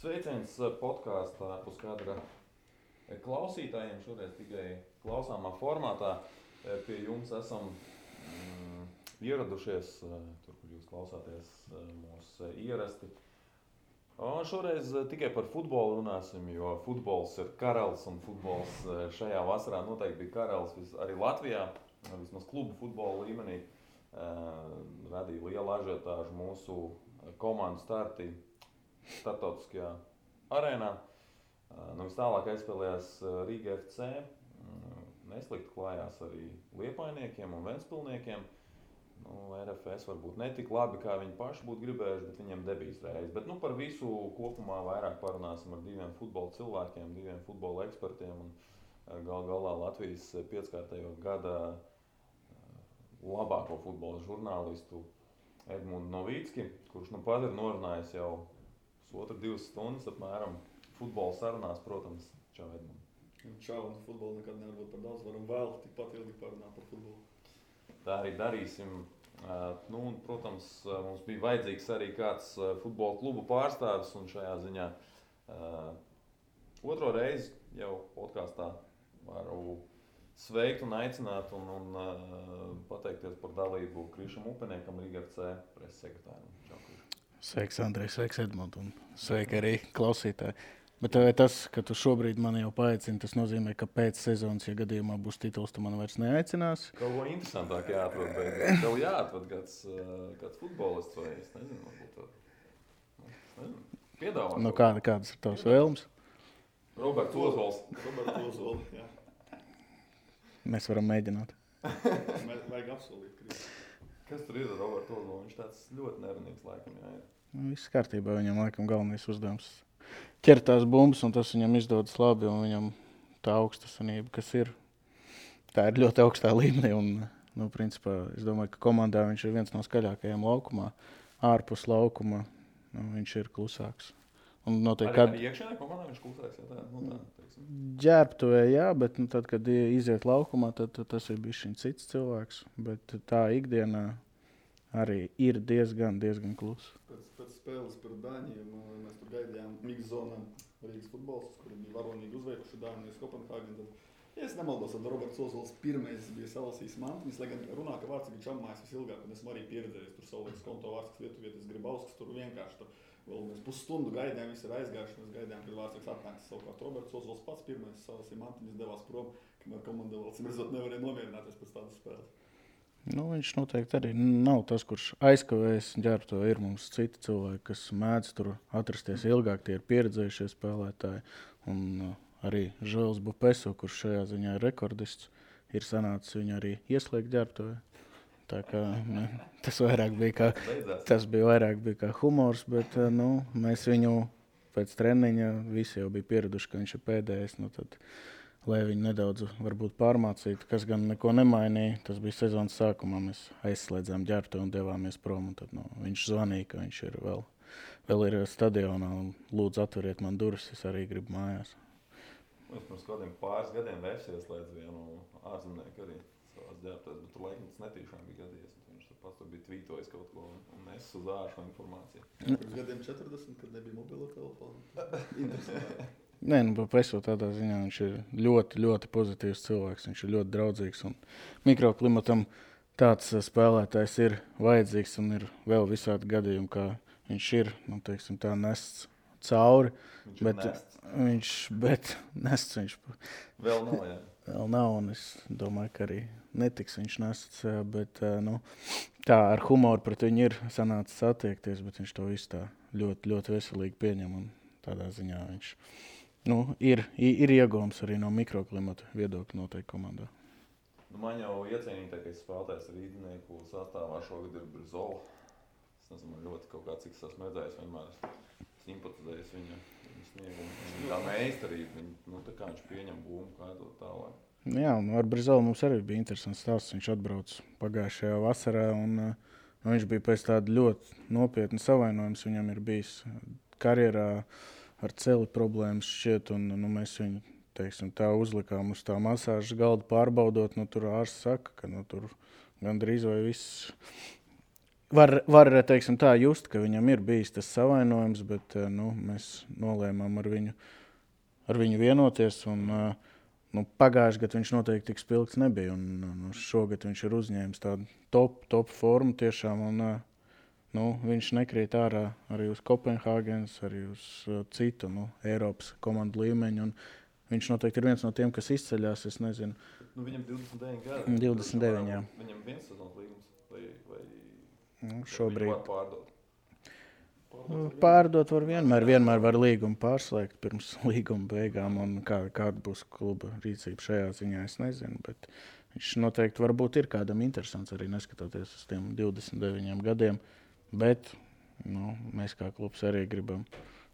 Sveiciens podkāstā Puskadra klausītājiem. Šoreiz tikai klausāmā formātā pie jums esam ieradušies, tur, kur jūs klausāties mūs ierasti. Un šoreiz tikai par futbolu runāsim, jo futbols ir karalis un futbols šajā vasarā noteikti bija karalis arī Latvijā, vismaz klubu futbola līmenī. Radīja lielu ažiotāžu mūsu komandu starti starptautiskajā arēnā. Vis tālāk aizspēlējās Rīga FC. Neslikti klājās arī Liepājniekiem un Ventspilniekiem. RFS varbūt ne tik labi, kā viņi paši būtu gribējuši, bet viņiem debijas reiz. Bet par visu kopumā vairāk parunāsim ar diviem futbola cilvēkiem, diviem futbola ekspertiem un galā Latvijas 5-kārtējo gada labāko futbola žurnālistu Edmundu Novīcki, kurš pat ir norunājis jau pusotru 2 stundas apmēram futbola sarunās, protams. Čau, Edmund. Čau, un futbolu nekad nevar būt par daudz, varam vēl tikpat ilgi parunāt par futbolu. Tā arī darīsim. Un, protams, mums bija vajadzīgs arī kāds futbola klubu pārstāvis, un šajā ziņā otro reizi jau podkāstā varu sveikt un aicināt un pateikties par dalību Krišam Upeniekam, Rīga FC preses sekretāram. Čau, Kriš. Sveiks, Andrej, sveiks, Edmund, un sveiki arī klausītāji. Bet tas, ka tu šobrīd mani jau paaicini, tas nozīmē, ka pēc sezonas, ja gadījumā būs tituls, tu mani vairs neaicinās? Kaut ko interesantāk jāatrod beidzot. Tev jāatrod kāds futbolists vai es nezinu, varbūt piedāvāt. Kādas ir tavas vēlmes? Roberts Ozols. Jā. Mēs varam mēģināt. Vajag apsolīt, Kristi. Kas tur ir ar Robertu Ozolu? Viņš tāds ļoti nevainīgs laikam jāir. Viss kārtībā, viņam laikam galvenais uzdevums ķert tās bumbas, un tas viņam izdodas labi, un viņam tā augstasanība, kas ir, tā ir ļoti augstā līmenī, un, principā, es domāju, ka komandā viņš ir viens no skaļākajiem laukumā, ārpus laukuma, viņš ir klusāks. Un noteikti, arī iekšēnē komandā viņš klusāks, ja tā, ģērbtuvē, jā, bet tad, kad iziet laukumā, tad tas ir bišķiņ cits cilvēks, bet tā ikdienā arī ir diezgan klusa. Pēc spēles par Dāņiem mēs tur gaidījām Mix zonām Rīgas futbols, kuri bija varonīgi uzveikuši Dāņu Kopenhāgenu. Ja es nemaldos, tad Roberts Ozols pirmais bija salasījis mantiņas, lai gan runā, ka Vārtsīgi čammājas visilgāk, un esmu arī pieredzējis tur savulīgs konto Vārtsīgs Lietuvietis Gribauskas, tur vienkārši tur vēl mēs pusstundu gaidījām, visi ir aizgājuši, mēs gaidījām, kad Vārtsīgs atnāks. Savukārt Roberts Ozols pats pirmais salasīja mantiņas, devās prom, kamēr komanda vēl cimredzot nevarēja nomierināties pēc tādas spēles. Viņš noteikti arī nav tas, kurš aizkavējas ģērbto. Ir mums citi cilvēki, kas mēdz tur atrasties ilgāk, tie ir pieredzējušie spēlētāji. Un arī Žēls Bupeso, kurš šajā ziņā ir rekordists, ir sanācis viņu arī ieslēgt ģērbto. Tā kā tas bija vairāk kā humors, bet mēs viņu pēc treniņa visi jau bija pieraduši, ka viņš ir pēdējais. Tad, lai viņi nedaudz varbūt pārmācītu, kas gan neko nemainīja. Tas bija sezonas sākumā, mēs aizslēdzām ģērbto un devāmies prom. Un tad, viņš zvanīja, ka viņš ir vēl ir stadionā un lūdzu atveriet man durvis, es arī gribu mājās. Es pirms kādiem pāris gadiem ieslēdzu vienu ārzemnieku arī savās ģērbtās, bet tur laikam tas netīšām bija gadījies. Viņš pats tur bija tvītojis kaut ko un es uz āršu informāciju. Pirms gadiem 40, kad nebija mobilo telefonu. Interesanti. Nē, Bupeso tādā ziņā viņš ir ļoti, ļoti pozitīvs cilvēks. Viņš ir ļoti draudzīgs un mikroklimatam tāds spēlētājs ir vajadzīgs un ir vēl visādi gadījumi, kā viņš ir, tā nests cauri. Bet nests viņš vēl nav, jā. Vēl nav, un es domāju, ka arī netiks viņš nests, bet tā ar humoru pret viņu ir sanācis attiekties, bet viņš to visu tā ļoti, ļoti veselīgi pieņem un tādā ziņā viņš ir iegūms arī no mikroklimata viedokļa noteikti komandā. Man jau iecienītākais spēlētājs Rīdnieku sastāvā šogad ir Brizola. Es nezinu, man ļoti kaut kā cik esmu redzējis, vienmēr simpatizējis viņa sniegumu. Tā meistarība, tā kā viņš pieņem būmu, kā to tālāk. Jā, un ar Brizolu mums arī bija interesants stāsts. Viņš atbrauc pagājušajā vasarā un viņš bija pēc tāda ļoti nopietna savainojums. Viņam ir bijis karjerā ar celi problēmas šķiet, un mēs viņu, tā uzlikām uz tā masāžas galda pārbaudot. Tur ārsts saka, ka tur gandrīz vai viss var teiksim tā, just, ka viņam ir bijis tas savainojums, bet mēs nolēmām ar viņu vienoties. Un, pagājušajā gadā viņš noteikti tik spilgts nebija. Un šogad viņš ir uzņēmis tādu top formu tiešām. Un, viņš nekrīt ārā arī uz Kopenhāgenes, arī uz citu Eiropas komandu līmeņu. Un viņš noteikti ir viens no tiem, kas izceļās. Es nezinu. Viņam 29 gadi. 29, jā. Viņam viens sezonas līgums vai šobrīd. Var pārdot. Pārdot var vienmēr var līgumu pārslēgt pirms līguma beigām. Un kāda būs kluba rīcība šajā ziņā, es nezinu. Bet viņš noteikti varbūt ir kādam interesants arī neskatoties uz tiem 29 gadiem. Bet mēs kā klubs arī gribam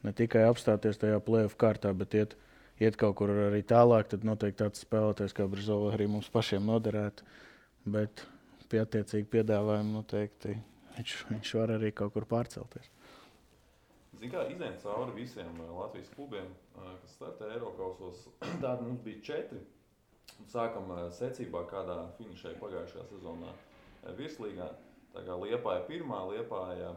ne tikai apstāties tajā play-off kārtā, bet iet kaut kur arī tālāk. Tad noteikti tāds spēlētājs kā Brizola arī mums pašiem noderētu. Bet pie attiecīgi piedāvājumu noteikti viņš var arī kaut kur pārcelties. Zin kā, izējām cauri visiem Latvijas klubiem, kas startē Eirokausos. Tādi mums bija 4. Sākam secībā, kādā finišēja pagājušajā sezonā virslīgā. Tā kā Liepāja pirmā, Liepāja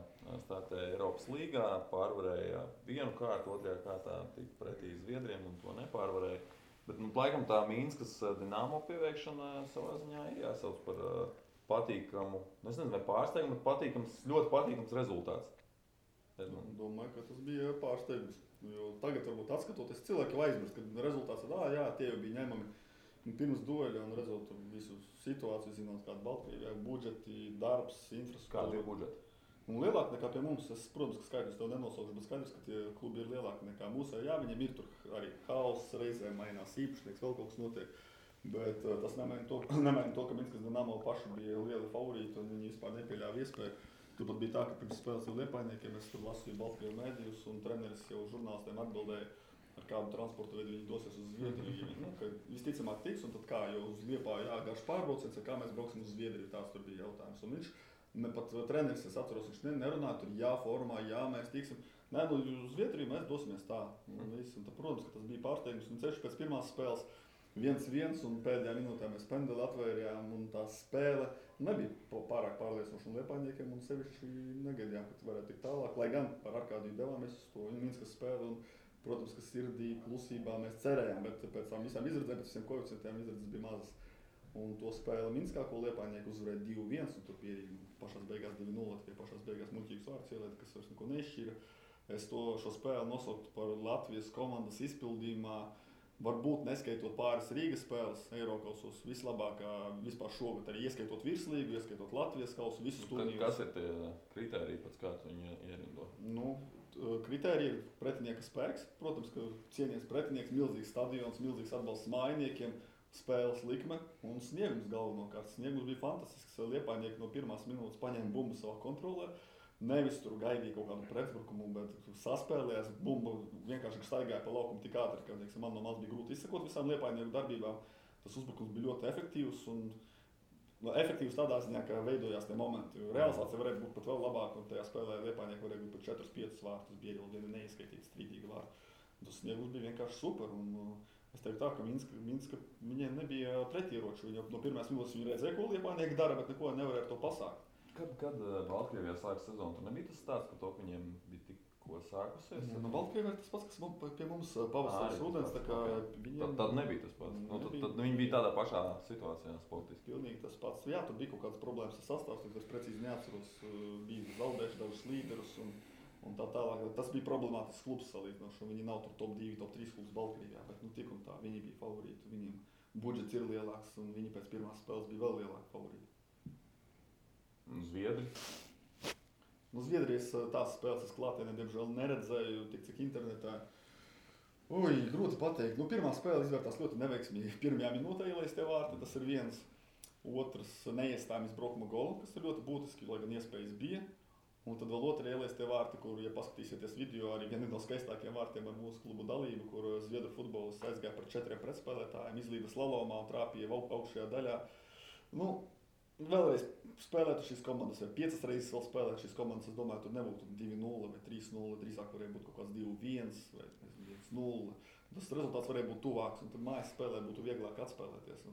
startēja Eiropas līgā, pārvarēja vienu kārtu, otrajā kārtā tika pretī Zviedriem un to nepārvarēja. Bet laikam tā Mīnskas Dinamo pieveikšana savā ziņā ir jāsauc par patīkamu, es nezinu, vai pārsteigumu, bet ļoti patīkams rezultāts. Domāju, ka tas bija pārsteigums. Jo tagad, varbūt atskatoties, cilvēki jau aizmirst, ka rezultāts tie jau bija ņemami pirms dueļa un redzot visu situāciju, zinot, kāda Baltkrievijā budžeti, darbs, infrastruktūra. Kādi ir budžeti? Un lielāki nekā pie mums. Es, protams, ka skaidrs tev nenosaukšu, bet skaidrs, ka tie klubi ir lielāki nekā mūsu. Jā, viņiem ir tur arī haoss, reizēm mainās īpašnieks, vēl kaut kas notiek. Bet tas nemaina to, ka Minskas Dinamo paši bija lieli favorīti un viņi vispār nepieļāva iespēju. Turpat bija tā, ka pirms spēles ar Liepājniekiem es tur lasīju Baltkrievu mēdījus un treneris jau žurnālistiem atbildēja, ar kādu transportu veidu viņi dosies uz Zviedriju. Ka visticamāk tiks, un tad kā, jo uz Liepāju jāgāž pārbrauciens, kā mēs brauksim uz Zviedriju, tāds tur bija jautājums. Un viņš, pat treneris, es atceros, viņš nerunāja, tur formā, mēs tiksim. Nē, uz Zviedriju mēs dosimies tā. Un tad, protams, ka tas bija pārsteigums, un ceļš pēc pirmās spēles 1-1, un pēdējā minūtē mēs pendeli atvērjām, un tā spēle nebija pārāk pārliecinoša un Liepājniekiem, un sevišķi negaidījām, ka varētu tikt tālāk. Lai gan par Arkādiju devāmies uz to Minskas spēli, un, protams, ka sirdī, klusībā mēs cerējām, bet pēc tam visām izredzēm, pēc visiem koeficientiem izredzes bija mazas. Un to spēli Minskā, ko Liepājnieki uzvarēja 2-1, un tur pierīgi pašās beigās 2-0, tikai pašās beigās muļķīgs vārds ielēta, kas vairs neko neizšķīra. Es šo spēli nosauktu par Latvijas komandas izpildījumā. Varbūt neskaitot pāris Rīgas spēles, Eirokausos vislabākā vispār šogad, arī ieskaitot virslīgu, ieskaitot Latvijas kausu, visus turnīrus. Kas ir tie kritēriji, pēc kā tu viņu ierindo? Kritēriji ir pretinieka spēks. Protams, ka cienies pretinieks, milzīgs stadions, milzīgs atbalsts mājiniekiem, spēles likme un sniegums galvenokārt. Sniegums bija fantastisks. Liepājnieki no pirmās minūtes paņēma bumbu savā kontrolē. Nevis tur gaidīja kaut kādu pretbrukumu, bet saspēlējās, bumba vienkārši staigāja pa laukumu tik ātri, ka man no malas bija grūti izsekot visām Liepājnieku darbībām. Tas uzbrukums bija ļoti efektīvs un efektīvs tādā ziņā, ka veidojās tie momenti. Realizācija varēja būt pat vēl labāka un tajā spēlē Liepājnieki varēja būt pat 4-5 vārtus, bija vēl viena neizskaitīta strīdīga vārta. Tas sniegums bija vienkārši super un es teiktu tā, ka Minska viņiem nebija pretieroču. Viņi no pirmās minūtes viņi redzēja, ko Liepājnieki dara, bet neko nevarēja ar to pasākt. Kad Baltkrievijā sākas sezonu, tur nebija tas stāsts par to, ka viņiem bija tikko sākusies? Baltkrievijā ir tas pats, kas pie mums pavasaris ūdens, tā kā viņiem... Tad nebija tas pats. Tad viņi bija tādā pašā situācijā sportiski. Pilnīgi tas pats. Jā, tur bija kaut kādas problēmas ar sastāvs, es precīzi neatceros, bija zaudējuši dažus līderus un tā tālāk. Tas bija problemātisks klubs salīdzinoši, un viņi nav tur top 2, top 3 klubs Baltkrievijā, bet tik un tā, viņi bija favorīti, viņiem budžets ir lielāks, un viņi pēc pirmās spēles bija vēl lielāki favorīti. Zviedri? Zviedrijas tās spēles es klātienē, diemžēl, neredzēju, tik cik internetā. Grūti pateikt. Pirmā spēle izvērtās ļoti neveiksmīgi. Pirmajā minūtē ielaistie vārti, tas ir viens. Otrs neiestājumies braukuma golu, kas ir ļoti būtiski, lai gan iespējas bija. Un tad vēl otrajā ielaistie vārti, kur, ja paskatīsieties video, arī viena no skaistākajiem vārtiem ar mūsu klubu dalību, kur zviedru futbolists aizgāja par 4 pretspēlētājiem, izlīda slalomā un trāpīja augšējā daļā. Vēlreiz spēlētu šīs komandas, vai 5 reizes vēl spēlētu šīs komandas, es domāju, tur nebūtu 2-0 vai 3-0, drīzāk varēja būt kaut kāds 2-1 vai 1-0. Tas rezultāts varēja būt tuvāks, un tad mājas spēlē būtu vieglāk atspēlēties.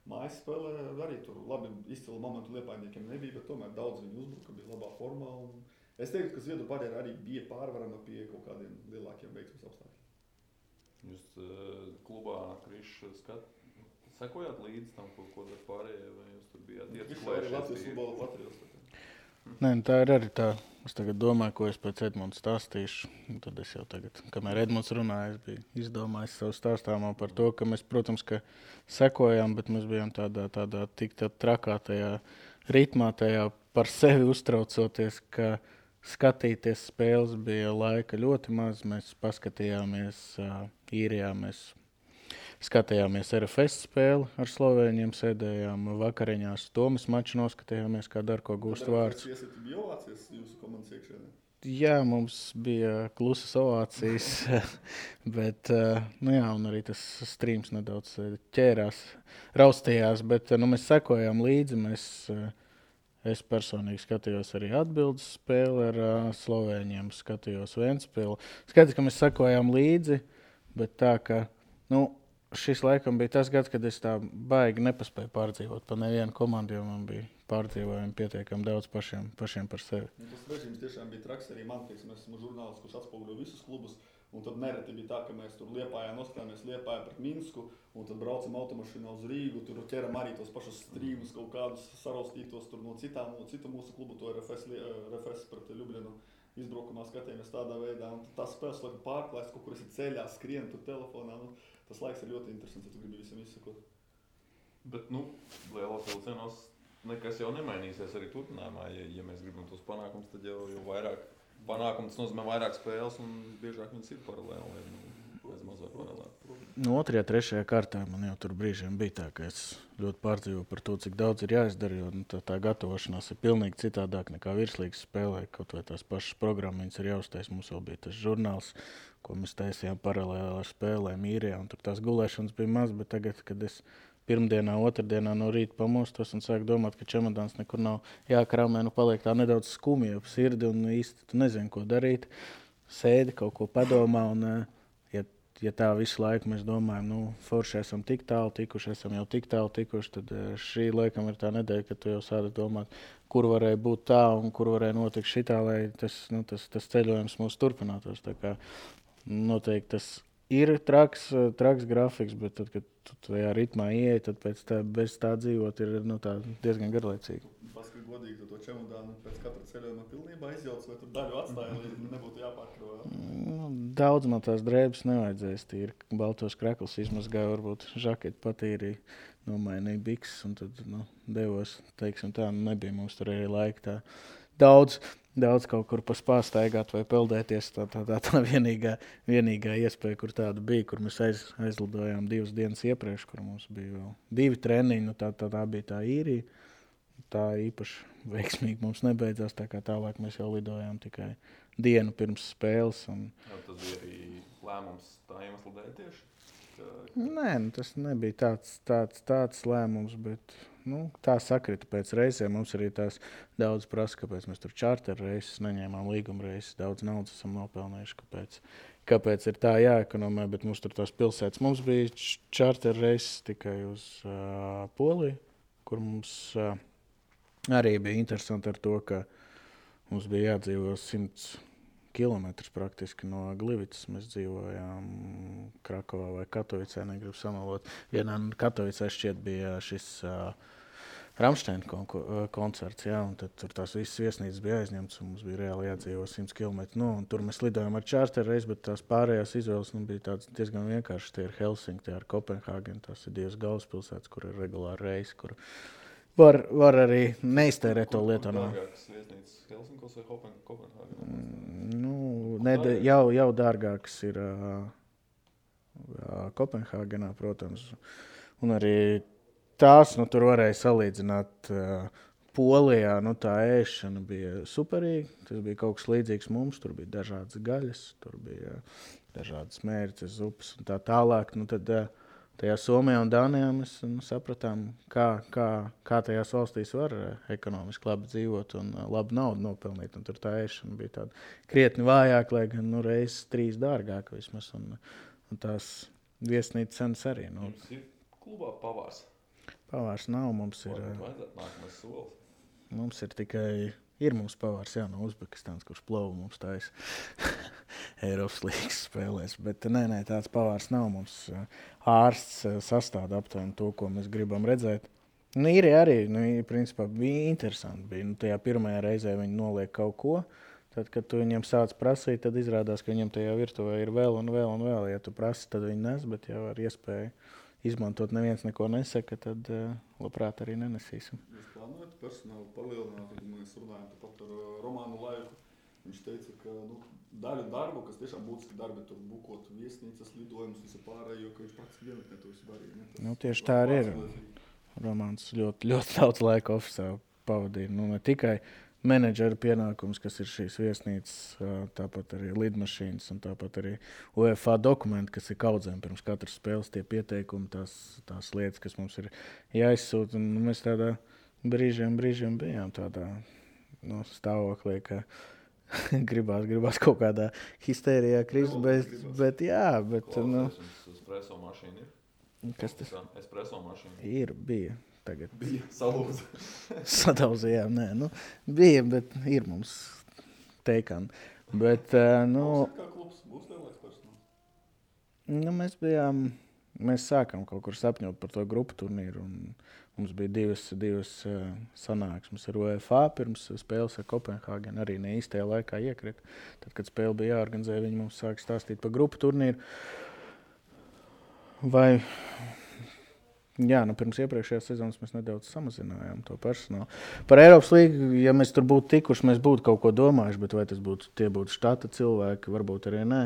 mājas spēlē arī tur labi izcila momentu Liepājniekiem nebija, bet tomēr daudz viņi uzbruka, bija labā formā. Un es teiktu, ka Zviedru barjera arī bija pārvarama pie kaut kādiem lielākiem veiksmes apstākļiem. Jūs klubā Krišs sekojāt līdzi tam, ko dar pārējie, vai jūs tur bijāt Krišs arī Latvijas futbola patriots. Nē, tā ir arī tā. Es tagad domāju, ko es pēc Edmunds stāstīšu. Tad es jau tagad, kamēr Edmunds runāja, es biju izdomājis savu stāstāmo par to, ka mēs, protams, ka sekojām, bet mēs bijām tādā tik trakā tajā ritmā, tajā par sevi uztraucoties, ka skatīties spēles bija laika ļoti maz. Mēs paskatījāmies Īrijā, mēs skatījāmies RFS spēli ar Slovēņiem, sēdējām vakariņās. Tomas maču noskatījāmies, kā Darko gūst vārds. Jūs bija ovācijas jūsu komandas iekšēnē? Jā, mums bija klusas ovācijas, bet, nu jā, un arī tas streams nedaudz ķērās, raustījās, bet mēs sekojām līdzi. Es personīgi skatījos arī atbildes spēli ar Slovēņiem, skatījos Ventspili. Skatījos, ka mēs sekojām līdzi, bet tā, ka, šis laikam bija tas gads, kad es tā baigi nepaspēju pārdzīvot pa nevienu komandu, jo man bija pārdzīvojumi pietiekami daudz pašiem par sevi. Tas režīms tiešām bija traks arī man, teiksim, es esmu žurnālists, kurš atspoguļo visus klubus, un tad nereti bija tā, ka mēs tur Liepājā noskatāmies Liepājā pret Minsku, un tad braucam automašīnā uz Rīgu, tur ķeram arī tos pašus strīmus, kaut kādus saraustītos tur no citu mūsu klubu, to RFS pret Ljubljanu. Izbraukumā skatījāmies tādā veidā, un tās spēles laikam pārklājas, kaut kur esi ceļā, skrien tur telefonā. Tas laiks ir ļoti interesants, ja tu gribi visam izsakot. Bet, lielos vilcienos nekas jau nemainīsies arī turpinājumā. Ja mēs gribam tos panākumus, tad jau vairāk panākumus nozīmē vairāk spēles, un biežāk viņas ir paralēli. Bez mazāk paralēli. 2., 3. kārtā man jau tur brīžiem bija tā, ka es ļoti pārdzīvoju par to, cik daudz ir jāizdara, jo tā gatavošanās ir pilnīgi citādāk nekā virslīgas spēlē. Kaut vai tās pašas programmas ir jāuztais. Mums vēl bija tas žurnāls, ko mēs taisījām paralēli ar spēlēm Īrijā, un tur tās gulēšanas bija maz, bet tagad, kad es pirmdienā, otrdienā no rīta pamostos un sāku domāt, ka čemodāns nekur nav jākrāmē, paliek tā nedaudz skumja ap sirdi un īsti tu nezini, ko darīt. Sēdi, kaut ko padomā, un ja tā visu laiku mēs domājam, forši esam tik tālu tikuši, esam jau tik tālu tikuši, tad šī laikam ir tā nedēļa, kad tu jau sādi domāt, kur varēja būt tā un kur varēja notikt šitā, lai tas ceļojums mūs turpinātos. Tā kā noteikti tas ir traks grafiks, bet tad, kad tu tajā ritmā ieej, tad pēc tā, bez tā dzīvot ir tā diezgan garlaicīgi. Paskatīt godīgi, tu to čemodānu pēc katra ceļojuma pilnībā izjauc, vai tur daļu atstāja, lai nebūtu jāpārkravā? Daudz man tās drēbes nevajadzēs, tīri baltos kraklus izmazgāju, varbūt žaketi patīrīja, nomainīja bikses un tad devos, teiksim tā, nebija mums tur arī laika tā daudz kaut kur paspāstaigāt vai peldēties. Tā vienīgā iespēja, kur tāda bija, kur mēs aizlidojām 2 dienas iepriekš, kur mums bija vēl 2 treniņi, tā bija tā Īrija. Tā īpaši veiksmīgi mums nebeidzās, tā kā tālāk mēs jau lidojām tikai dienu pirms spēles. Tas bija arī lēmums tā iemesla dēļ tieši? Nē, tas nebija tāds lēmums, bet tā sakrita pēc reizēm. Mums arī tās daudz prasa, kāpēc mēs tur čārter reizes neņēmām līguma reizes. Daudz naudas esam nopelnējuši, kāpēc ir tā jāekonomē, bet mums tur tās pilsētas. Mums bija čārter reizes tikai uz Poliju, kur mums arī bija interesanti ar to, ka mums bija jādzīvo 100 kilometrus praktiski no Glivicas. Mēs dzīvojām Krakovā vai Katovicē, negribu samalot. Vienā Katovicē šķiet bija šis Rammstein koncerts, jā, un tad tur tās visas viesnīcas bija aizņemtas, un mums bija reāli jādzīvo 100 kilometru. Un tur mēs lidojām ar čārteru reizi, bet tās pārējās izvēles bija tādas diezgan vienkāršas. Tie ir Helsinki, tie ir Kopenhāgena, tās ir 2 galvaspilsētas, kur ir regulāri reisi, kur var arī neiztērēt to lietu. Dārgākas viesnīcas Helsinkos vai Kopenhāgenā? Jau dārgākas ir Kopenhāgenā, protams. Un arī tās, tur varēja salīdzināt Polijā, tā ēšana bija superīga. Tas bija kaut kas līdzīgs mums, tur bija dažādas gaļas, tur bija dažādas mērces, zupas un tā tālāk. Tad tajā Somijā un Dānijā mēs sapratām, kā tajās valstīs var ekonomiski labi dzīvot un labu naudu nopelnīt. Un tur tā ēšana bija tāda krietni vājāka, lai gan reizes 3 dārgāka vismaz. Un tās viesnīcas cenas arī. Jums ir klubā pavārs? Pavārs nav, mums ir. Vajadzētu nākamais solis. Mums ir tikai. Ir mums pavārs, jā, no Uzbekistānas, kurš plovu mums taisa Eiropas līgas spēlēs. Bet nē, tāds pavārs nav. Mums ārsts sastāda aptuveni to, ko mēs gribam redzēt. Nu, ir arī, principā bija interesanti. Tajā pirmajā reizē viņi noliek kaut ko. Tad, kad tu viņiem sāc prasīt, tad izrādās, ka viņiem tajā virtuvē ir vēl un vēl un vēl. Ja tu prasi, tad viņi nes, bet jau ar iespēju izmantot neviens neko nesaka, tad labprāt arī nenesīsim. Jūs plānojat personālu palielināt, kad mēs runājam pat ar Romānu Laiku. Viņš teica, ka daļu darbu, kas tiešām būtiski darbi, tur bukot viesnīcas, lidojumus, visu pārējo, ka viņš praktiski vienotnē to visu darīja. Tieši tā arī ir. Romāns ļoti, ļoti daudz laika ofisā pavadīja. Ne tikai menedžera pienākums, kas ir šīs viesnīcas, tāpat arī lidmašīnas un tāpat arī UEFA dokumenti, kas ir kaudzēm pirms katras spēles, tie pieteikumi, tās lietas, kas mums ir jāizsūta. Un mēs tādā brīžiem bijām tādā stāvoklī, ka gribās kaut kādā histērijā krist, bet jā. Espresso mašīna ir? Kas tas? Espresso mašīna. Bija. Tagad bija salūza. Sadauzījām, bija, bet ir mums teikani. Bet, kā klubs būs lielāks personāls? Mēs sākām kaut kur sapņot par to grupu turnīru, un mums bija divas sanāksmes ar UEFA pirms spēles ar Kopenhāgenu, arī ne īstajā laikā iekrita. Tad, kad spēle bija jāorganizē, viņi mums sāka stāstīt par grupu turnīru. Pirms iepriekšējās sezonas mēs nedaudz samazinājām to personālu. Par Eiropas līgu, ja mēs tur būtu tikuši, mēs būtu kaut ko domājuši, bet vai tie būtu štata cilvēki, varbūt arī nē.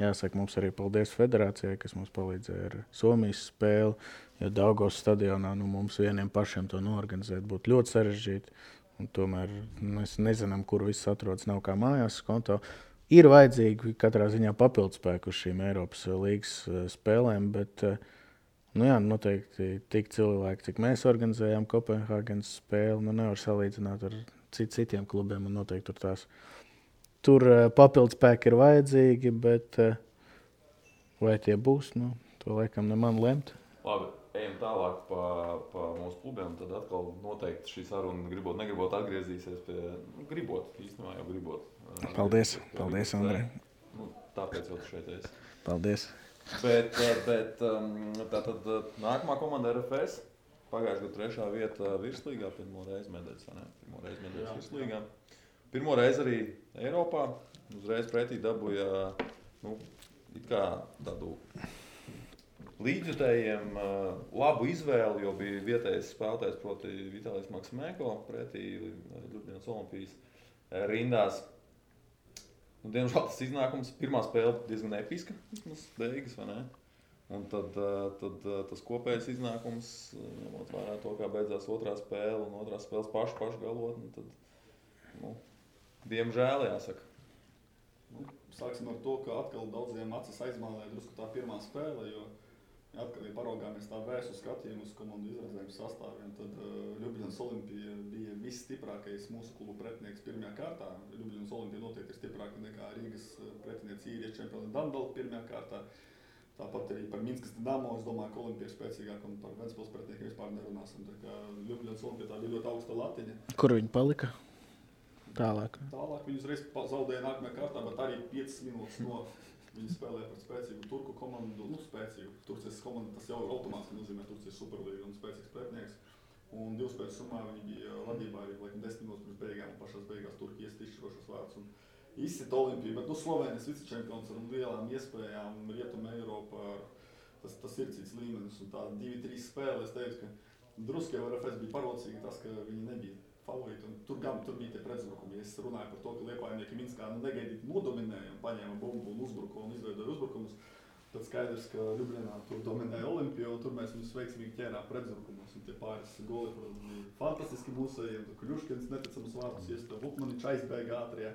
Jāsaka, mums arī paldies federācijai, kas mums palīdzēja ar Somijas spēli, jo Daugavas stadionā mums vieniem pašiem to noorganizēt būtu ļoti sarežģīti. Un tomēr mēs nezinām, kur viss atrodas, nav kā mājās konto. Ir vajadzīgi katrā ziņā papildspēku uz šīm Eiropas līgas spēlēm, bet noteikti tik cilvēki, cik mēs organizējām Kopenhāgenas spēli, nevar salīdzināt ar citiem klubiem, un noteikti tur papildspēki ir vajadzīgi, bet vai tie būs, to laikam ne man lemt. Labi, ejam tālāk pa mūsu klubiem, tad atkal noteikti šī saruna negribot atgriezīsies pie, īstenībā jau gribot. Paldies, Andrej. Tāpēc jau tu šeit esi. Paldies. Bet tātad nākamā komanda RFS, pagājušajā gadu 3. vieta virslīgā, pirmo reizi medaļas virslīgā. Pirmo reizi arī Eiropā, uzreiz pretī dabūja it kā tādu līdzjutējiem labu izvēli, jo bija vietējais spēlētājs, proti Vitālijs Maksimēko, pretī Ļubļanas Olimpijas rindās. Diemžēl tas iznākums, pirmā spēle diezgan episka, vismaz beigas, vai ne? Un tad tas kopējais iznākums, ņemot vērā to, kā beidzās otrā spēle un otrās spēles pašu galotni, tad, diemžēl jāsaka. Sāksim ar to, ka atkal daudziem acis aizmālēja drusku tā pirmā spēle, jo atkal, ja paraugāmies tā vērsu skatījumu uz komandu izredzējumu sastāviem, tad Ļubļanas Olimpija bija visstiprākais mūsu klubu pretinieks pirmajā kārtā. Ļubļanas Olimpija noteikti ir stiprāka nekā Rīgas pretinieks īriešu čempioni Danbela pirmajā kārtā. Tāpat arī par Minskas Dinamo, es domāju, ka Olimpija ir spēcīgāka un par Ventspils pretiniekiem vispār nerunāsim. Tā kā Ļubļanas Olimpija tā bija ļoti augsta latiņa. Kur viņi palika? Tālāk viņi uzreiz zaudēja nākamajā kārtā, bet arī 5 minūtes no viņi spēlēja par spēcīgu turku komandu, spēcīgu Turcijas komandu, tas jau automātiski nozīmē Turcijas superlīga un spēcīgs pretinieks. Un 2 spēļu summā viņi bija vadībā arī 10 minūtes pirms beigām un pašās beigās Turki iest izšķirošos vārdus un izsita Olimpiju, bet Slovēnijas vicečempions ar lielām iespējām, Rietuma Eiropa, tas ir cits līmenis un tā 2-3 spēle, es teicu, ka drusku jau RFS bija parocīgi tas, ka viņi nebija favorīti, un tur bija tie pretzbrukumi. Es runāju par to, ka liepājnieki Minskā negaidīti nodominēja un paņēma bumbu un uzbruka un izveidoja uzbrukumus. Tad skaidrs, ka Ļubļanā tur dominēja Olimpija, un tur mēs viņus veiksmīgi ķērām pretzbrukumos. Un tie pāris goli, protams, bija fantastiski mūsējiem. Kļuškins neticams vārdus iesta, Vukmaničs aizbēga ātrijā.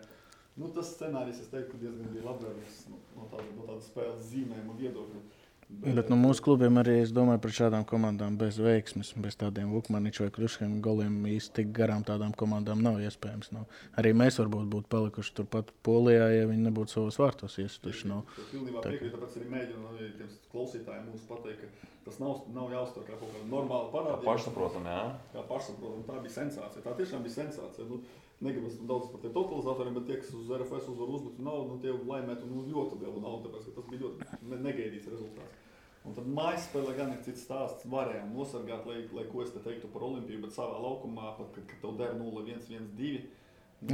Tas scenārijs, es teiktu, diezgan bija labvēlīgs no tāda spēles zīmējuma viedokļa. Bet no mūsu klubiem arī, es domāju, par šādām komandām bez veiksmes, bez tādiem Vukmaniču vai Kruškiem goliem īsti tik garām tādām komandām nav iespējams. No. Arī mēs varbūt būtu palikuši turpat Polijā, ja viņi nebūtu savos vārtos iestuši. No. Pilnībā piekrīt, tāpēc arī mēģinu tiem klausītājiem mums pateikt, ka tas nav jāuztver kā kaut kāda normāla parādība. Pašsaprotam, jā. Kā pašsaprotam, tā bija sensācija. Tā tiešām bija sensācija. Negribas daudz par tiem totalizatoriem, bet tie, kas uz RFS uzvaru uzliktu naudu, tie laimētu ļoti lielu naudu, tāpēc, ka tas bija ļoti negaidīts rezultāts. Un tad mājas spēlē gan ir cits stāsts. Varējām nosargāt, lai ko es te teiktu par Olimpiju, bet savā laukumā, pat, kad tev der 0-1, 1-2.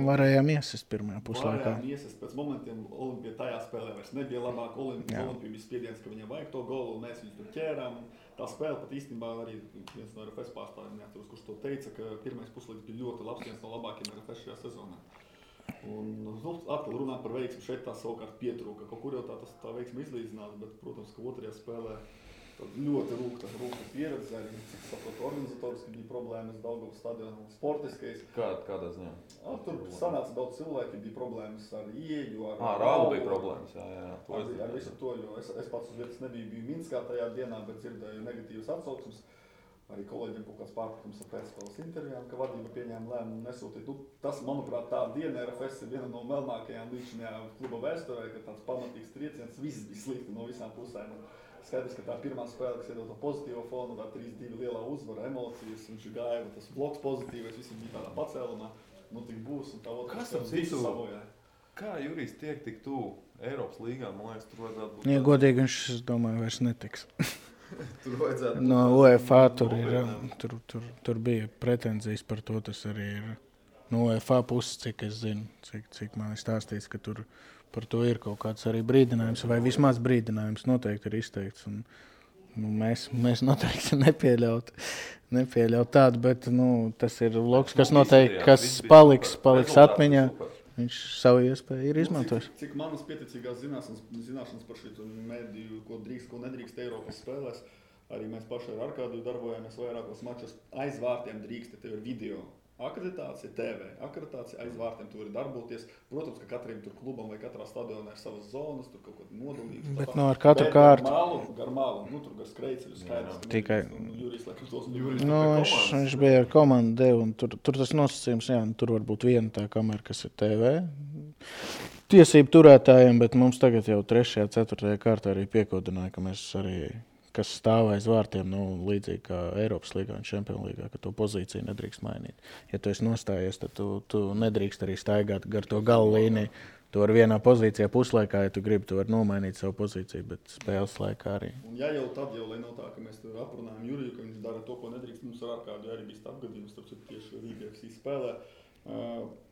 Varējām iesist pirmajā puslaikā. Varējām iesist. Pēc momentiem Olimpija tajā spēlē vairs nebija labāk. Olimpija bija spiediens, ka viņam vajag to golu, un mēs viņus tur ķērām. Tā spēle pat īstenībā arī viens no RFS pārstāvjiem neatceros, kurš to teica, ka pirmais puslaiks bija ļoti labs, viens no labākiem RFS šajā sezonā. Un, atkal runāt par veiksmu, šeit tā savukārt pietrūka. Kaut kur jau tā veiksma izlīdzinās, bet, protams, ka otrajā spēlē ļoti rūkta pieredze. Arī, cik saprotu, organizatoriski bija problēmas Daugavas stadionā, sportiskais. Kādā ziņā? Tur sanāca daudz cilvēki, bija problēmas ar ieeju, ar Raulu bija problēmas, jā. Ar visu to, jo es pats uz vietas biju Minskā tajā dienā, bet dzirdēju negatīvas atsauksmes. Arī kolēģiem kaut kāds pārpratums ar pēcspēles intervijām, ka vadība pieņēma lēmumu nesūtīt. Tas, manuprāt, tā diena RFS ir viena no melnākajām līdzinājā kluba vēsturē, ka tāds pamatīgs trieciens, viss bija slikti no visām pusēm. Skaidrs, ka tā pirmā spēle, kas iedod to pozitīvo fonu, tā 3-2 lielā uzvara, emocijas, viņš gāja, tas bloks pozitīvais, visi bija tādā pacēlumā, tik būs, un tā otrā spēle visu savojā. Kā Jurijs tiek tik tuvu Eiropas līgā, man liekas, tur vajadzētu būt... Ja godīgi, viņš, es domāju, vairs netiks. Tur vajadzētu... No UEFA tur bija pretenzijas par to, tas arī ir no UEFA puses, cik es zinu, cik man ir stāstīts, ka tur par to ir kaut kāds arī brīdinājums, vai vismaz brīdinājums noteikti ir izteikts. Un, mēs noteikti nepieļaut tādu, bet tas ir loks, kas noteikti, kas paliks atmiņā. Viņš savu iespēju ir izmantojis. Cik manas pieticīgās zināšanas par šī mediju, ko drīkst, ko nedrīkst Eiropas spēlēs, arī mēs paši ar Arkādiju darbojāmies vairākos mačos. Aiz vārtiem drīkst, tev ir video akreditācija, TV akreditācija, aiz vārtiem tu vari darboties. Protams, ka katram tur klubam vai katrā stadionā ir savas zonas, tur kaut kāda nodalība. Bet ar katru kārtu. Gar malu, tur gar skrejceļu skaidrs. Tikai. Jurijs, laikam, tos viņš bija ar komandu devu, un tur tas nosacījums, tur var būt viena tā kamera, kas ir TV. Tiesību turētājiem, bet mums tagad jau 3. 4. kārtā arī piekodināja, ka mēs arī, kas stāv aiz vārtiem, līdzīgi kā Eiropas līgā un Čempionu līgā, ka to pozīciju nedrīkst mainīt. Ja tu esi nostājies, tad tu nedrīkst arī staigāt gar to galu līniju. Tu vari vienā pozīcijā puslaikā, ja tu gribi, tu vari nomainīt savu pozīciju, bet spēles laikā arī. Un ja jau tad, lai nav tā, ka mēs tur aprunājam Juriju, ka viņš dara to, ko nedrīkst, mums ar Arkādu arī bija apgadījums, tāpēc tieši Rīga FC spēlē.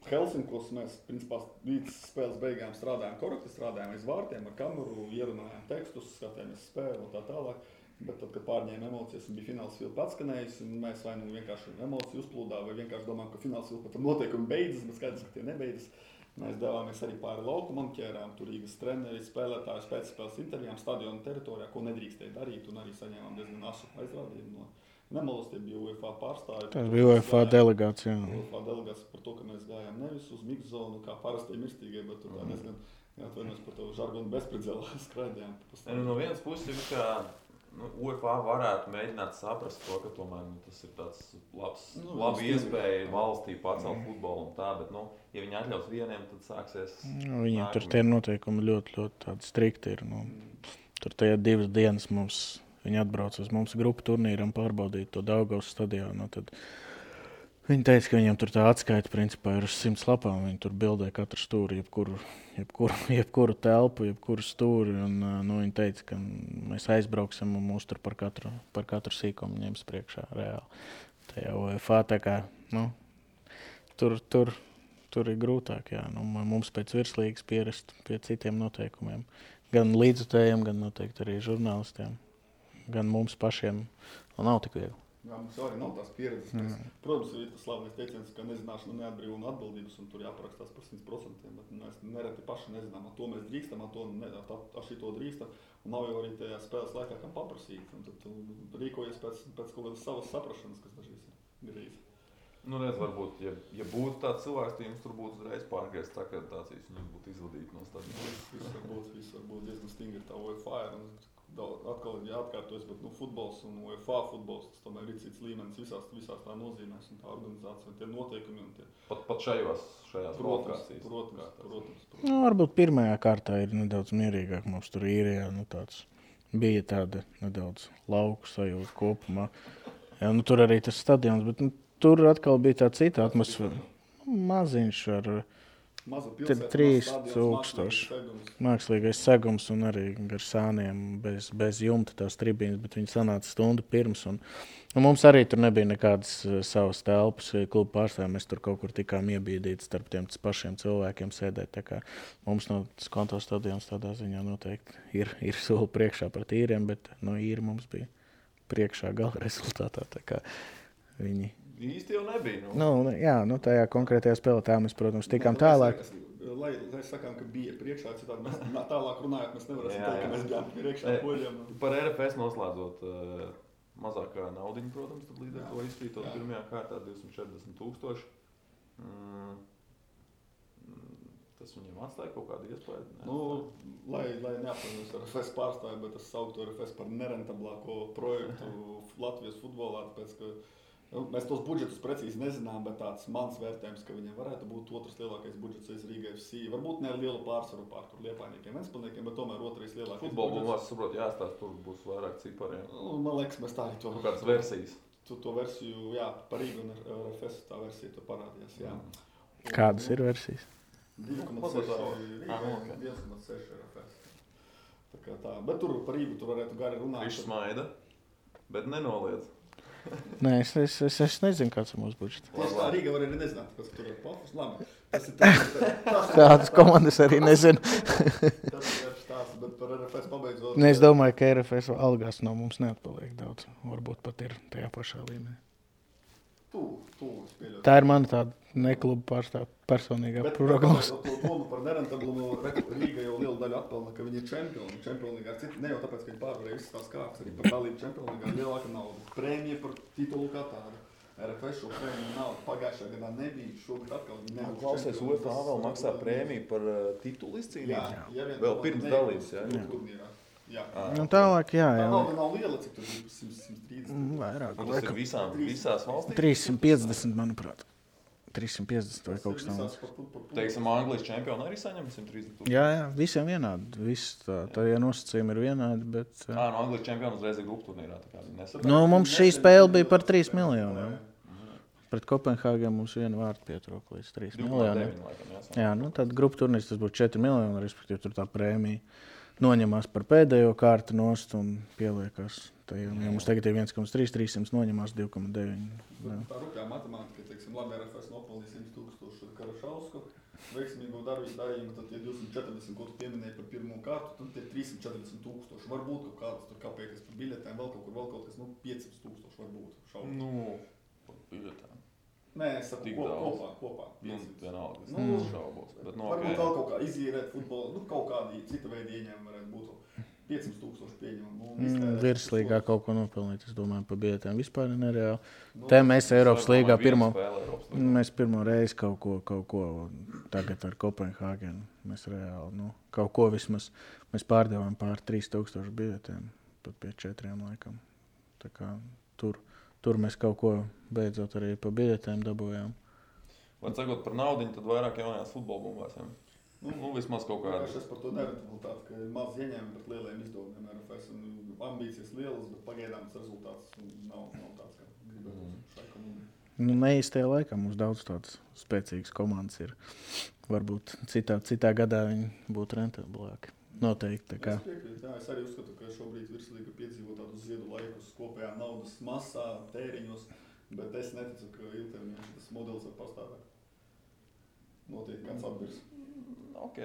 Helsinkos mēs, principā, līdz spēles beigām strādājām korekti, strādājām aiz vārtiem ar kameru, ierunājām tekstus, skatījāmies spēli un tā tālāk. Bet tad, kad pārņēma emocijas un bija fināls vilpa atskanējis, un mēs vai vienkārši emociju uzplūdā, vai vienkārši domājam, ka fināls vilpa tam noteikumi beidzas, bet skaidrs, ka tie nebeidzas. Mēs devāmies arī pāri laukumam, ķērām tur Rīgas treneri, spēlētājus pēc spēles intervijām stadiona teritorijā, ko nedrīkstēja darīt, un arī saņēmām diezgan asu aizrādījumu no Nemolas, tie bija UEFA pārstāvi. Tas bija UEFA delegācija. UEFA delegācija par to, ka mēs gājām nevis uz mix zonu, kā parastie mirstīgie, bet tur tā diezgan, atvainojos par to žargonu bezpredzelā skraidījām. No vienas puses, ka UEFA varētu mēģināt saprast to, ka tomēr tas ir tāds labs iespēja valstī pacelt futbolu un tā, bet, ja viņi atļaus vieniem, tad sāksies... Viņiem tur tie noteikumi ļoti tādi strikti ir. Tur tajā 2 dienas viņi atbrauc uz mums grupu turnīram pārbaudīt to Daugavas stadionu. Tad viņi teica, ka viņiem tur tā atskaita principā ir uz 100 lapām. Viņi tur bildē katru stūri, jebkuru telpu, jebkuru stūri. Un, viņi teica, ka mēs aizbrauksim un mūs tur par katru sīkumu ņems priekšā reāli. Tajā UEFA tā kā, tur ir grūtāk, jā. Mums pēc virslīgas pierast pie citiem noteikumiem. Gan līdzutējiem, gan noteikti arī žurnālistiem. Gan mums pašiem nav tik viegli. Jā, mums arī nav tās pieredzes. Protams, ir tas slavenais teiciens, ka nezināšana neatbrīvo atbildības, un tur jāparakstās par 100%. Bet mēs nereti paši nezinām, to mēs drīkstam, šito drīkstam. Un nav jau arī tajā spēles laikā, kam paprasīt. Un tad tu rīkojies pēc kaut kādas savas saprašanas, kas dažreiz ir grīzi. Redz, varbūt, ja būtu tāds cilvēks, tad jums tur būtu uzreiz pārgriezt akreditācijas, un jums būtu izvadīti no stadiona. Viss var būt diezgan stingri tā UEFA ir. atkal ir jāatkārtojas, bet futbols un UEFA futbols, tas tomēr ir cits līmenis visās tā nozīmēs un tā organizācija un tie noteikumi. Un tie... Pat šajās kvalifikācijas. Protams. Nu, varbūt pirmajā kārtā ir nedaudz mierīgāk. Mums tur īrijā bija tāda nedaudz lauku sajūta kopumā. Jā, tur arī tas stadions, bet tur atkal bija tā cita atmosfēra. Maziņš ar 3000 mākslīgais segums un arī gar sāniem bez jumta tās tribīnes, bet viņi sanāca stundu pirms. Un mums arī tur nebija nekādas savas telpas klubu pārstāvjiem. Mēs tur kaut kur tikām iebīdīti starp tiem pašiem cilvēkiem sēdēt. Tā kā mums no Skonto stadions tādā ziņā noteikti ir soli priekšā pret īriem, bet no īri mums bija priekšā gala rezultātā. Tā kā viņi... Īsti jau nebija. Jā, tajā konkrētajā spēlē tā mēs, protams, tikām tālāk. Lai sakām, ka bija priekšā, citādi mēs tālāk runājot, mēs nevarēsim teikt, ka mēs bijām priekšā poļiem. Par RFS noslēdzot mazākā naudiņa, protams, tad līdz ar to izkrītot pirmajā kārtā 240,000. Tas viņiem atstāja kaut kādu iespēju? Lai neapvainojas ar RFS pārstāju, bet es sauktu RFS par nerentablāko projektu Latvijas futbolā, tāpēc, ka mēs tos budžetus precīzi nezinām, bet tāds mans vērtējums, ka viņiem varētu būt otrs lielākais budžets aiz Rīga FC. Varbūt ne ar lielu pārsvaru pār tur Liepājniekiem, Ventspilsniekiem, bet tomēr otrais lielākais budžets. Futbola būs, saprot, jāstāst, tur būs vairāk cipariem. Man liekas, mēs tā arī to... Kādas versijas? To versiju, jā, par Rīgu un RFS tā versija tur parādījās, jā. Kādas ir versijas? 2,6 RFS. Tā kā tā, bet tur par Rīgu tur varētu gari runāt. Viņš smaida, bet nenoliedz. Nē, es nezinu, kāds ir mūsu budžets. Tā Rīga var arī nezināt, kas tur ir pofus. Labi. Tādas komandas arī nezinu. Tas ir stāsts, bet par RFS pabeidzot... Es domāju, ka RFS algās no mums neatpaliek daudz. Varbūt pat ir tajā pašā līmenī. Tā ir mana tāda nekluba pārstāv personīgā prognoze. Bet to par nerentablumu Rīga jau lielu daļu atpelna, ka viņi ir čempioni. Čempionlīgā ar citu, ne jau tāpēc, ka viņi pārvarēja visas tās kārtas, arī par dalību čempionlīgā lielāka nauda. Prēmija par titulu kā tādu. RFS šo prēmiju naudu pagājušā gadā nebija, šogad atkal nebūs. Klausies, UEFA vēl maksā prēmiju par titulu izcīnību? Jā, vēl pirms dalības, jā? Jā. Tālāk, jā. Tā nav liela, cik tur ir 130. Vairāk. Tas ir visās valstīs? 350, manuprāt. 350 vai kaut kas tāds. Teiksim, Anglijas čempioni arī saņem 130,000? Jā, visiem vienādi. Tā nosacījumi ir vienādi, bet... No Anglijas čempioni uzreiz ir grupu turnīrā. Mums šī spēle bija par 3 miljoniem. Pret Kopenhāgenu mums vienu vārdu pietrūka līdz 3 miljoniem. Jā, tad grupu turnīrs tas būtu 4 miljoni, respektīvi tur tā prēmija noņemās par pēdējo kārtu nost un pieliekās. Ja mums tagad ir 1,3, 300 noņemās 2,9. Tā rupjā matemātika, teiksim, labi, RFS nopelnīja 100,000 Karašausku, veiksmīgo darījumu, tad tie 240, ko tu pieminēji par pirmo kārtu, tad tie 340,000. Varbūt kaut kādas tur kāpēties par biļetēm, vēl kaut kas, 500,000 varbūt šaubu. Par biļetēm. Nē, es saku kopā. Vienalga, es šaubos. Varbūt vēl kaut kā izīrēt futbolu, kaut kādi cita veidi ieņēmumi varētu būt. 500,000 pieņemumu. Virslīgā kaut ko nopelnīt, es domāju, par biļetēm vispār ir nereāli. Te mēs Eiropas līgā mēs pirmo reizi kaut ko tagad ar Kopenhāgenu. Mēs reāli, kaut ko vismaz mēs pārdevām pār 3,000 biļetēm, pat pie 4 laikam. Tā kā tur mēs kaut ko beidzot arī pa biļetēm dabūjām. Vai sakot par naudiņu, tad vairāk jaunajās futbola bumbās, jā? Vismaz kaut kādā. Es par to nerentabilitāti, ka ir maz ieņēmumi pret lieliem izdevumiem RFS un ambīcijas lielas, bet pagaidām tas rezultāts nav tāds, kā gribētu šai komandai. Neīstajā laikā mums daudz tādas spēcīgas komandas ir. Varbūt citā gadā viņi būtu rentablāki. Noteikti. Es piekrītu, es arī uzskatu, ka šobrīd virslīga piedzīvo tādu ziedu laikus kopējā naudas masā, tēriņos, bet es neticu, ka ilgtermiņā šis modelis var pastāvēt. Noteikti kāds atbirs. Ok.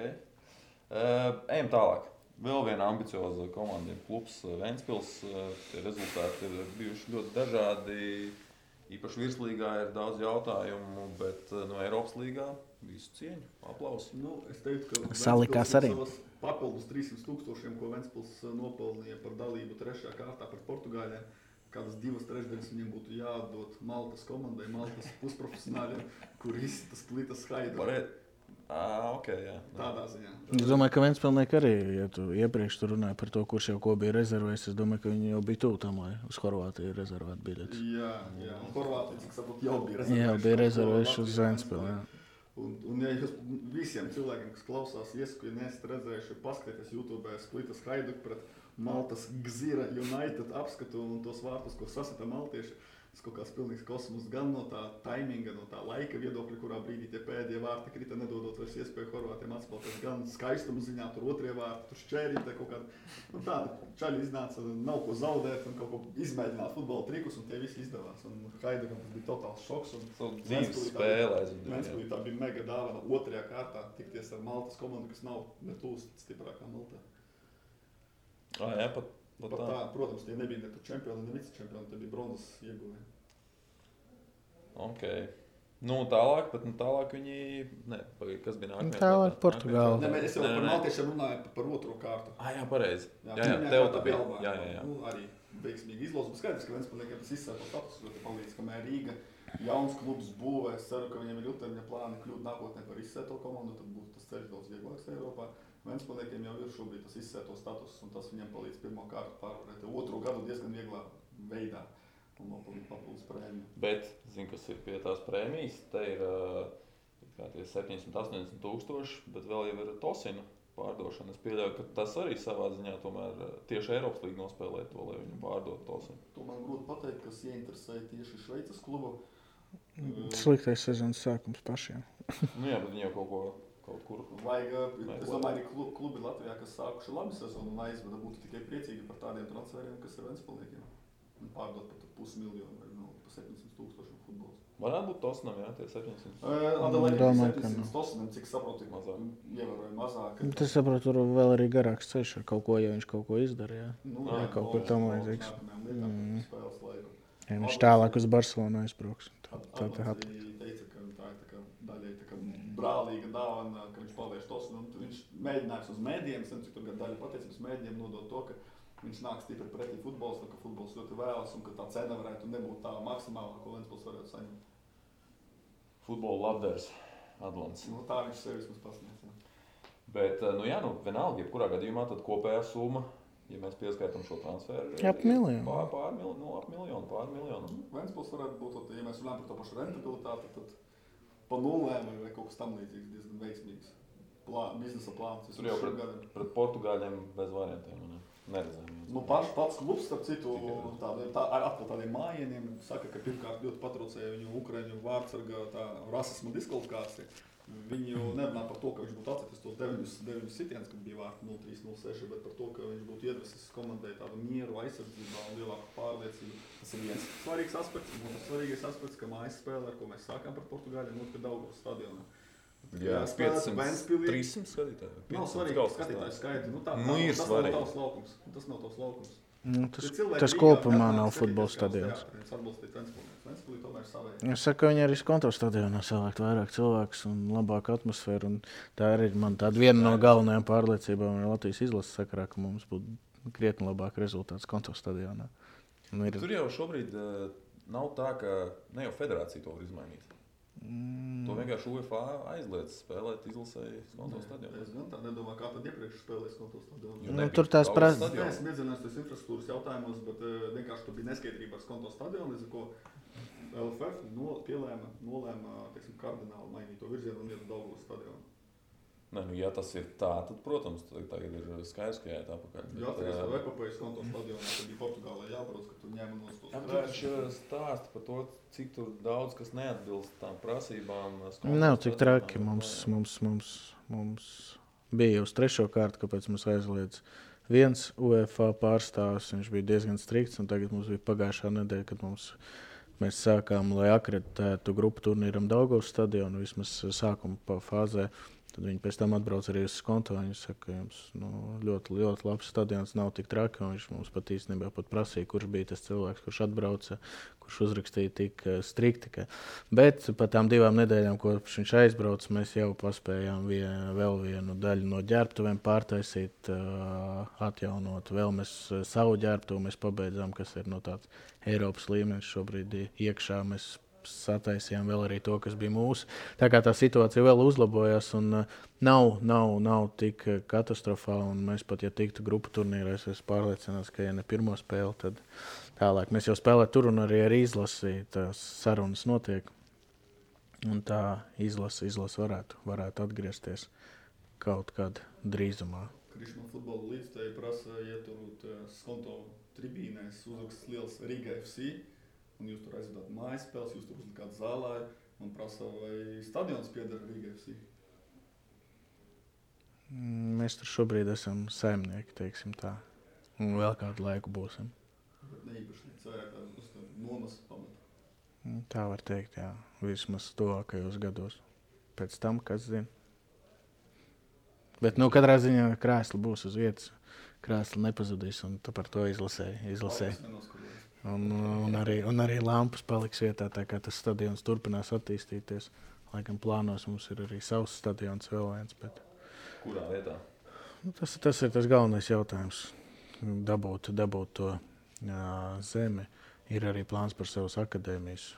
Ejam tālāk. Vēl viena ambicioza komanda ir klubs Ventspils. Tie rezultāti ir bijuši ļoti dažādi. Īpaši virslīgā ir daudz jautājumu, bet no Eiropas līgā visu cieņu, aplausu. Es teiktu, ka salikās arī. Papildus 300,000, ko Ventspils nopelnīja par dalību 3. kārtā par Portugāļiem, kādas 2/3 viņiem būtu jādod Maltas komandai, Maltas pusprofesionāļiem, kur izsita Splitas Hajduk. Okay, jā. Tādā ziņā. Es domāju, ka Ventspilnieki arī, ja tu iepriekš tu runāji par to, kurš jau ko bija rezervējis, es domāju, ka viņi jau bija tuvu tam, lai uz Horvātiju rezervētu biļetes. Jā. Un Horvātija, cik saprotu, jau bija Jā, bija rezervējuši uz Ventspili, jā. Un ja jūs visiem cilvēkiem, kas klausās, iesaku, ja neesat redzējuši, paskatieties YouTube Splitas Hajduk pret Maltas Gzira United apskatu un tos vārtus, ko sasita maltieši. Tas kaut kāds pilnīgs kosmos gan no tā taiminga, no tā laika viedokļa, kurā brīdī tie pēdējie vārti krita, nedodot vairs iespēju Horvātiem atspēlēties, gan skaistuma ziņā, tur otrie vārti, tur šķērīte kaut kāda. Nu tāda čaļi iznāca, nav ko zaudēt un kaut ko izmēģināt futbola trikus, un tie visi izdevās. Un Hajdukam tas bija totāls šoks. Dzīves spēlē. Ventspilī tā bija mega dāvana otrajā kārtā tikties ar Maltas komandu, kas nav netūs stiprākā Maltā. Jā, pat tā, protams, tie nebija ne čempioni, ne vicečempioni, tie bija bronzas ieguvēji. Ok. Tālāk viņi... Kas bija nākamajā? Tālāk Portugāla. Es jau par maltiešiem runāju par otro kārtu. Jā, pareizi. Jā, tev tā bija. Jā. Arī veiksmīgi izlozums. Skaidrs, ka Ventspilniekiem tas izsēto status ļoti palīdz, kamēr Rīga jauns klubs būvē. Es ceru, ka viņiem ir ilgtermiņa plāni kļūt nākotnē par izsēto komandu, tad būs tas ceļš daudz vieglāks Eiropā. Ventspilniekiem jau ir šobrīd tas izsēto status, un tas viņiem palīdz pirmo kārtu pārvarēt. Otro gadu diezgan vieglā veidā un nopelnīt papildus prēmiju. Bet, kas ir pie tās prēmijas, te ir 780 tūkstoši, bet vēl jau ir Tosina pārdošana. Es pieļauju, ka tas arī savā ziņā tomēr tieši Eiropas līga nospēlē to, lai viņu pārdot Tosinu. To man grūti pateikt, kas ieinteresēja tieši Šveicas klubu. Sliktais sezonas sākums pašiem. Jā, bet viņi jau kaut kur. Es domāju, arī klubi Latvijā, kas sākuši labi sezonu un aizveda, būtu tikai priecīgi par tādiem transferiem, kas ir Ventspilniekiem. Pārdot pat 500 000 vai pa 700 000 futbols. Varētu būt Tosinam, jā, tie 700. Adelaide 700 Tosinam, cik saprotu, ievērojami mazāk. Tas saprotu, tur vēl arī garāks ceļš ar kaut ko, ja viņš kaut ko izdara, jā. Jā, kaut kur tam vajadzīgs. Spēles laiku. Ja viņš tālāk uz Barcelonu aizbrauks. Adelaide teica, ka tā ir daļai brālīga dāvana, ka viņš palieš Tosinu. Viņš mēģinājis uz mēdījiem, cik tur daļa pateicības mēdījiem nodot to, ka viņš nāk stipri pretī futbols, ka futbols ļoti vēlas un ka tā cena varētu nebūt tā maksimālā, ko Ventspils varētu saņemt. Futbola labdars Adlants. Tā viņš sevis mums pasniedz. Bet, vienalga, jebkurā gadījumā tad kopējā summa, ja mēs pieskaitam šo transferu, ap miljonu. Pār miljonu. Ventspils varētu būt, ja mēs runājam par to pašu rentabilitāti, tad pa nulēm vai kaut kas tam līdzīgs diezgan veiksmīgs biznesa plāns. Tur jau pret Portugāļiem bez variantiem, neredzējām. Pats klubs, starp citu, atkal tādiem mājieniem saka, ka pirmkārt ļoti patraucēja viņu Ukraiņu vārdsarga rasisma diskvalifikācija. Viņi jau nerunā par to, ka viņš būtu atcetis tos 9 sitienus, kad bija vārti 0-3, 0-6, bet par to, ka viņš būtu iedvesis komandai tādu mieru, aizsardzībā un lielāku pārliecību. Tas ir viens svarīgs aspekts. Un otrs svarīgais aspekts, ka mājas spēle, ar ko mēs sākām par Portugāļiem, notika Daugavas stadionā. Jā, 500, 300 skatītāji. Nav svarīgi skatītāju skaiti. Tas nav tavs laukums. Tas kopumā nav futbola stadions. Ventspilī tomēr savēja. Es saku, ka viņi arī konto stadionā savākt vairāk cilvēkus un labāku atmosfēru. Un tā arī man tāda viena no galvenajām pārliecībām Latvijas izlases sakarā, ka mums būtu krietni labāk rezultāts konto stadionā. Tur jau šobrīd nav tā, ka ne jau federācija to var izmainīt. To vienkārši UEFA aizliedz spēlēt izlasēji konto stadionā. Es gan tā nedomāju, kā tad iepriekš spēlēs konto stadionā. Tur tās prasa. Es nezinās tos infrastruktūras jautājumos, bet vienkārši tur bija neskaidrība ar konto stadionu, līdz ar ko LFF nolēma kardināli mainīt to virzienu un iet uz Daugavas stadionu. Ja tas ir tā, tad, protams, tagad ir skaidrs, ka jāiet apakaļ. Jā, tas ir epopējas konto stadionā, tad bija Portugālē jābrauc, ka tur ņēma nos tos krēšus. Viņš stāsta par to, cik tur daudz, kas neatbilst tām prasībām. Nav tik traki. Mums bija uz 3. kārtu, kāpēc mums aizliedz viens UEFA pārstāvs. Viņš bija diezgan strikts, un tagad mums bija pagājušā nedēļa, kad mēs sākām, lai akreditētu grupu turnīram Daugavas stadionu, vismaz sākuma fāzē. Tad viņi pēc tam atbrauc arī uz konto. Viņi saka, ka jums ļoti, ļoti labs stadions, nav tik traki. Viņš mums pat īstenībā prasīja, kurš bija tas cilvēks, kurš atbrauca, kurš uzrakstīja tik strikti. Bet pat tām 2 nedēļām, kopš viņš aizbrauca, mēs jau paspējām vēl vienu daļu no ģērbtuvēm pārtaisīt, atjaunot. Vēl mēs savu ģērbtuvu mēs pabeidzām, kas ir no tāds Eiropas līmenis šobrīd iekšā. Mēs sataisījām vēl arī to, kas bija mūsu. Tā kā tā situācija vēl uzlabojās un nav tik katastrofāla. Un mēs pat, ja tiktu grupu turnīrā, es pārliecināts, ka ja ne pirmo spēli, tad tālāk. Mēs jau spēlējam tur un arī ar izlasi tās sarunas notiek. Un tā izlase varētu atgriezties kaut kad drīzumā. Krišņu futbola līdzstēji prasa ieturūt skonto tribīnēs, uzraksts liels Riga FC, un jūs tur aizvedāt mājas spēles, jūs tur uzlikāt zālē, un prasa, vai stadions pieder Riga FC? Mēs tur šobrīd esam saimnieki, teiksim tā, un vēl kādu laiku būsim. Bet ne īpašnieks, vai uz nomas pamata? Tā var teikt, jā, vismaz tuvākajos gados. Pēc tam, kas zina. Bet, katrā ziņā krēsli būs uz vietas. Krēsli nepazudīs, un tu par to izlasēji. Un arī lampas paliks vietā, tā kā tas stadions turpinās attīstīties. Laikam plānos mums ir arī savs stadions vēl viens. Bet... Kurā vietā? Tas ir tas galvenais jautājums. Dabūt to zemi. Ir arī plāns par savas akadēmijas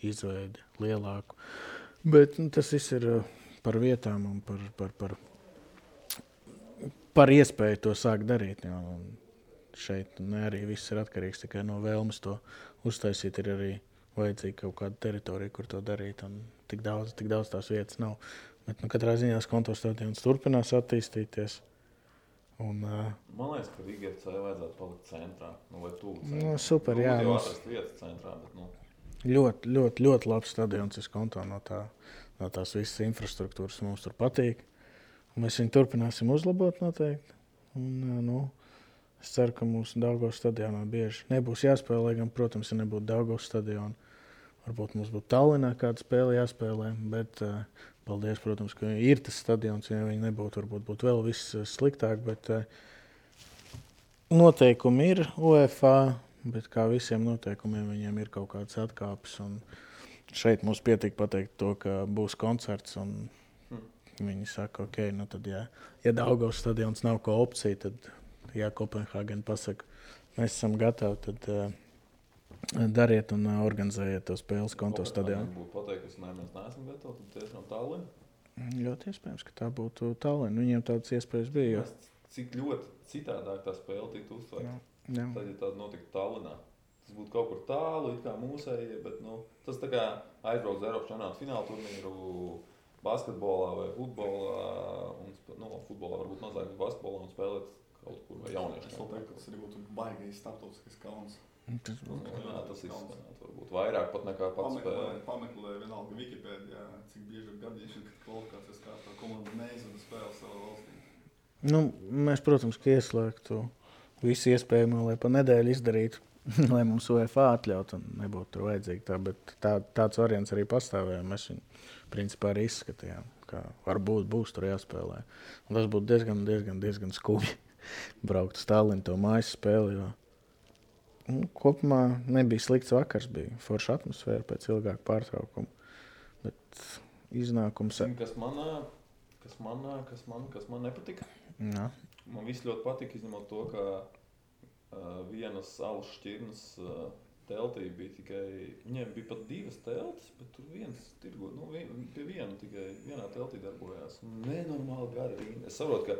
izveidi lielāku. Bet tas viss ir par vietām un par iespēju to sākt darīt. Jā. Šeit arī viss ir atkarīgs tikai no vēlmes to uztaisīt. Ir arī vajadzīga kaut kāda teritorija, kur to darīt. Un tik daudz tās vietas nav. Bet katrā ziņā Skonto stadions turpinās attīstīties. Un, man liekas, ka Riga FC vajadzētu palikt centrā. Vai tuvu centrā. Super, jā. Jau atrast vietas centrā, bet Ļoti labs stadions ir Skonto no tās visas infrastruktūras. Mums tur patīk. Un mēs viņu turpināsim uzlabot noteikti. Un, es ceru, ka mūsu Daugavas stadionā bieži nebūs jāspēlē. Gan, protams, ja nebūtu Daugavas stadiona, varbūt mums būtu Tallinā kāda spēle jāspēlē. Bet paldies, protams, ka ir tas stadions. Ja viņi nebūtu, varbūt būtu vēl viss sliktāk. Bet noteikumi ir UEFA, bet kā visiem noteikumiem viņiem ir kaut kādas atkāpes. Un šeit mums pietika pateikt to, ka būs koncerts. Un viņi saka, ok, tad ja Daugavas stadions nav ko opcija, tad ja Kopenhāgena pasaka, mēs esam gatavi, tad dariet un organizējiet to spēles Skonto stadionā. Būtu pateikusi, mēs neesam gatavi, tad tiešām Tallinn? Ļoti iespējams, ka tā būtu Tallinn. Viņiem tādas iespējas bija. Cik ļoti citādāk tā spēle tiktu uztvērta. Tad, ja tāda notiktu Tallinā. Tas būtu kaut kur tālu, it kā mūsējie, bet tas tā kā aizbrauc uz Eiropas čempionāta fināla turnīru basketbolā vai futbolā. Futbolā varbūt mazāk basketbolā un spēlēt kaut kur vai jauniešu. Es vēl teiktu, ka tas arī būtu baigais starptautiskais kauns. Tas izskanāt varbūt vairāk pat nekā pats spēlē. Pameklē vienalga Wikipēdijā, cik bieži ir gadījuši, kad kvalifikācijas kārtā komanda neizvada spēli savā valstī. Mēs, protams, ka ieslēgtu visu iespējamo, lai pa nedēļu izdarītu, lai mums UEFA atļautu un nebūtu tur vajadzīgi tā, bet tāds variants arī pastāvēja. Mēs viņu principā arī izskatījām, ka varbūt būs tur jāspēlē. Un tas būtu diezgan skubji braukt uz Tallinnu to mājas spēli, jo kopumā nebija slikts vakars, bija forša atmosfēra pēc ilgāka pārtraukuma, bet iznākums... Kas man nepatika? Jā. Man viss ļoti patika, izņemot to, ka vienas alus šķirnes teltī bija tikai, viņiem bija pat 2 teltis, bet tur viens tirgo, pie viena tikai vienā teltī darbojās. Nenormāli gari rinda. Es saprotu, ka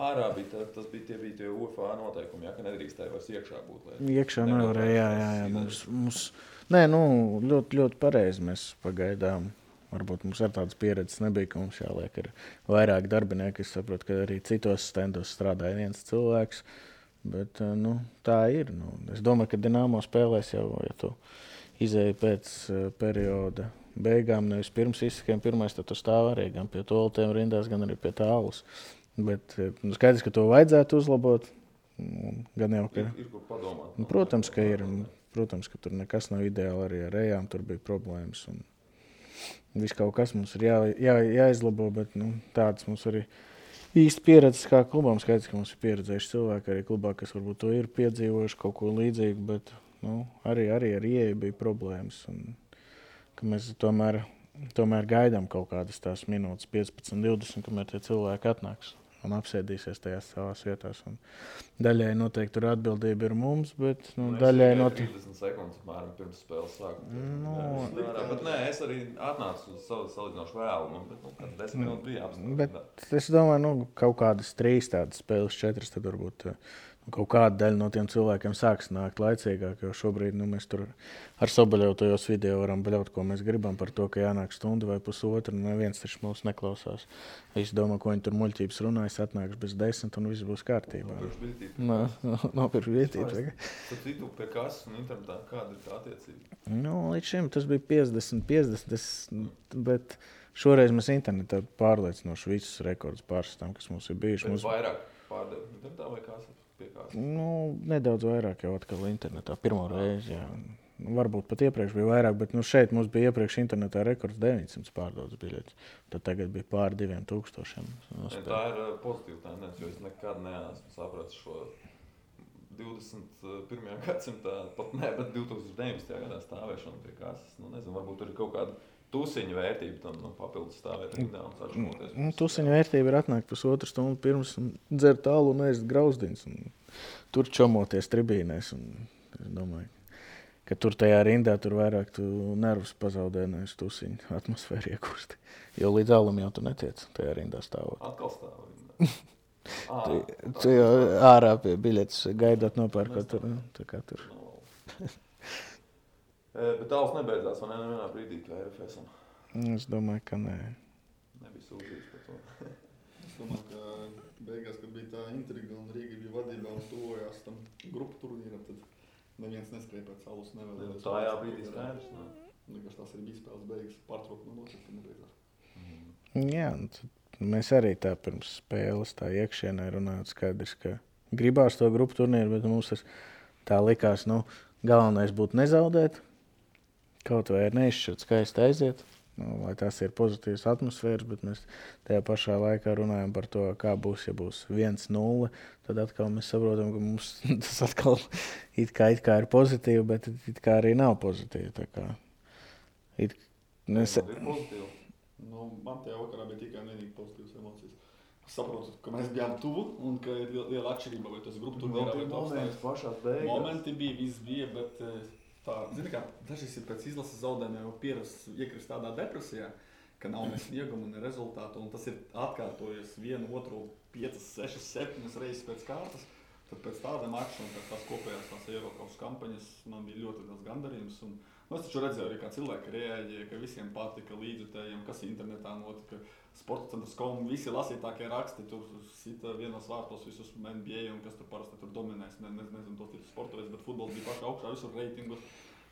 ārā bija, tie bija tie UEFA noteikumi, ka nedrīkstēja vairs iekšā būt. Iekšā nevarēja, jā. Mums ļoti, ļoti pareizi mēs pagaidām. Varbūt mums ar tādas pieredzes nebija, ka mums jāliek ir vairāk darbinieki. Es saprotu, ka arī citos stendos strādāja viens cilvēks. Bet tā ir. Es domāju, ka Dinamo spēlēs jau, ja tu izēji pēc perioda beigām, nevis pirms izsakiem pirmais, tad tu stāv arī gan pie toaletēm rindās, gan arī pie tālus. Bet skaidrs, ka to vajadzētu uzlabot. Gan jau, ka... Ir kur padomāt. Protams, ka ir. Protams, ka tur nekas nav ideāli. Arī ar ejām tur bija problēmas. Un viss kaut kas mums ir jāizlabo, bet tāds mums arī īsti pieredzes kā klubām. Skaidrs, ka mums ir pieredzējuši cilvēki arī klubā, kas varbūt to ir piedzīvojuši kaut ko līdzīgu, bet arī ar ieeju bija problēmas. Un, ka mēs tomēr gaidām kaut kādas tās minūtes 15, 20, kamēr tie cilvēki atnāks. un apsēdīsies tajās savās vietās. Un daļai noteikti tur atbildība ir mums, bet daļai noteikti... 30 sekundes apmēram pirms spēles sākuma. Bet nē, es arī atnācu uz salīdzinoši vēlu, bet 10 minūtes bija apstākļi. Bet es domāju, kaut kādas 3 tādas spēles, 4, tad varbūt kaut kāda daļa no tiem cilvēkiem sāks nākt laicīgāk, jo šobrīd mēs tur ar Soboļevu tajos video varam bļaut, ko mēs gribam par to, ka jānāk stundu vai pusotru, un neviens taču mūs neklausās. Visi domā, ko viņi tur muļķības runājas, atnāks bez 10 un viss būs kārtībā. Nopirkt vietību. Tad citu pie kases un internetā, kāda ir tā attiecība? Līdz šim tas bija 50, bet šoreiz mēs internetā pārliecinoši visus rekordus pārstāvam, kas mums ir bijuši. Bet vairāk pārdev internetā vai kases? Nedaudz vairāk jau atkal internetā. Pirmo reizi, jā. Varbūt pat iepriekš bija vairāk, bet šeit mums bija iepriekš internetā rekords 900 pārdodas biļetes. Tad tagad bija pār 2000. Tā ir pozitīva tendence, jo es nekad neesmu sapratis šo 21. gadsimtā, pat ne, bet 2019. gadā stāvēšanu pie kases. Nezinu, varbūt tur ir kaut kāda tusiņa vērtība tam papildus stāvēt rindā un sačamoties. Tusiņa vērtība ir atnākt pusotru stundu pirms un dzert alu un ēst grauzdiņus. Tur čomoties tribīnēs. Es domāju, ka tur tajā rindā tur vairāk tu nervus pazaudē nevis tusiņu atmosfēru iekusti. Jo līdz alam jau tu netiec tajā rindā stāvot. Atkal stāv rindā. Tu jau ārā pie biļetes gaidāt nopērkot tur. Tā kā tur. Bet tāls nebeidzās, vai nevienā brīdī, kā RFS? Es domāju, ka nē. Nebija sūdzības par to. Es domāju, ka beigās, kad bija tā intriga un Rīga bija vadībā un tuvojās tam grupu turnīram, tad neviens neskrēja pēc alus nevēlējās. Tā jā brīdī skaidrs. Liekas, tās arī bija spēles beigas pārtraukt no notiek, ka nebeidzās. Jā, mēs arī tā pirms spēles tā iekšienē runājot skaidrs, ka gribās to grupu turnīru, bet mums tas tā likās, galvenais būtu nezaudēt. Kaut vai ir neizšķirt skaisti aiziet, lai tās ir pozitīvas atmosfēras, bet mēs tajā pašā laikā runājam par to, kā būs, ja būs 1-0, tad atkal mēs saprotam, ka mums tas atkal it kā ir pozitīvi, bet it kā arī nav pozitīvi. Tā kā ir pozitīvi. Man tajā vakarā bija tikai vienīgi pozitīvas emocijas. Es saprotu, ka mēs bijām tuvu un ka ir liela atšķirība, vai tas grupu turnīrā vai tas momenti bija, viss bija, bet tā, zini kā, dažreiz ir pēc izlases zaudējumiem jau pierasts iekrist tādā depresijā, ka nav ne sniegumu, ne rezultātu, un tas ir atkārtojies 1, 2, 5, 6, 7 reizes pēc kārtas. Tad pēc tāda mača un pēc tās kopējās tās Eiropas kampaņas man bija ļoti daudz gandarījums. Es taču redzēju arī, kā cilvēki reaģēja, ka visiem patika līdzjutējiem, kas internetā notika. Sportcentrs.com, visi lasītākie raksti, tur sita vienos vārtos visus NBA un kas tur parasti tur dominēs. Nezinu, tos ir sportovēc, bet futbols bija pašā augšā visur reitingos.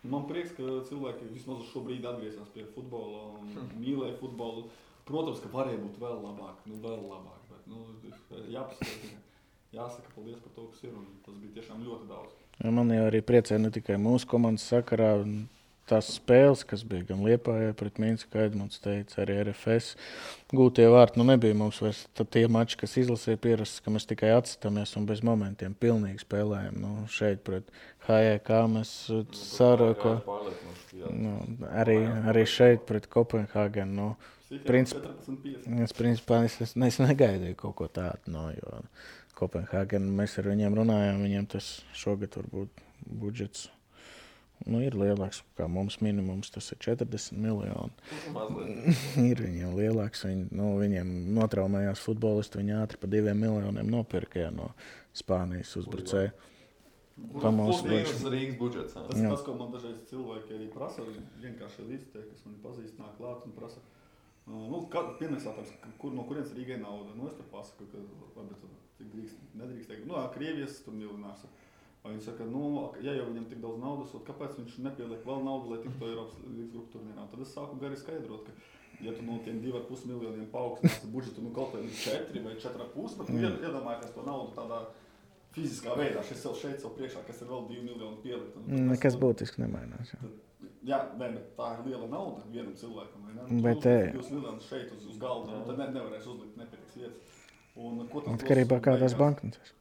Man prieks, ka cilvēki vismaz uz šo brīdi atgriezās pie futbola un mīlēja futbolu. Protams, ka varēja būt vēl labāk, bet jāsaka paldies par to, kas ir, un tas bija tiešām ļoti daudz. Man jau arī priecē ne tikai mūsu komandas sakarā, tās spēles, kas bija gan Liepājā pret Minsku, kā Edmunds teica, arī RFS gūtie vārti. Nebija mums vairs tie mači, kas izlasīja pierasts, ka mēs tikai atstāmies un bez momentiem pilnīgi spēlējam. Šeit pret HJK mēs Sāroko, arī šeit pret Kopenhāgenu. Principā es negaidīju kaut ko tādu, jo Kopenhāgenu mēs ar viņiem runājām, viņiem tas šogad varbūt budžets ir lielāks, kā mums minimums, tas ir 40 miljoni. Ir viņiem lielāks, viņiem notraumējās futbolisti, viņi ātri pa 2 miljoniem nopirka no Spānijas uzbrucēja. Plus mīnus Rīgas budžets. Tas, ko man dažreiz cilvēki arī prasa, vienkārši līdztiek, kas mani pazīst, nāk klāt un prasa, pirmais jautājums, no kurienes Rīgai nauda? Es tur pasaku, ka nedrīkst teikt, Krievijas tur miljonārs. Viņi saka, ja jau viņam tik daudz naudas, kāpēc viņš nepieliek vēl naudu, lai tiktu Eiropas līgas grupu turnīrā? Tad es sāku gari skaidrot, ka ja tu no tiem 2,5 miljoniem paaugstinās budžetu kaut vai 4 vai 4,5, bet iedomājieties to naudu tādā fiziskā veidā. Es šeit sev priekšā, kas ir vēl 2 miljoni pielikt. Nekas būtiski nemainās. Bet tā ir liela nauda vienam cilvēkam. Bet 2 miljonus šeit uz galda, tad nevarēs uzlikt nepietiks vietas. Atkarībā kādās banknotēs.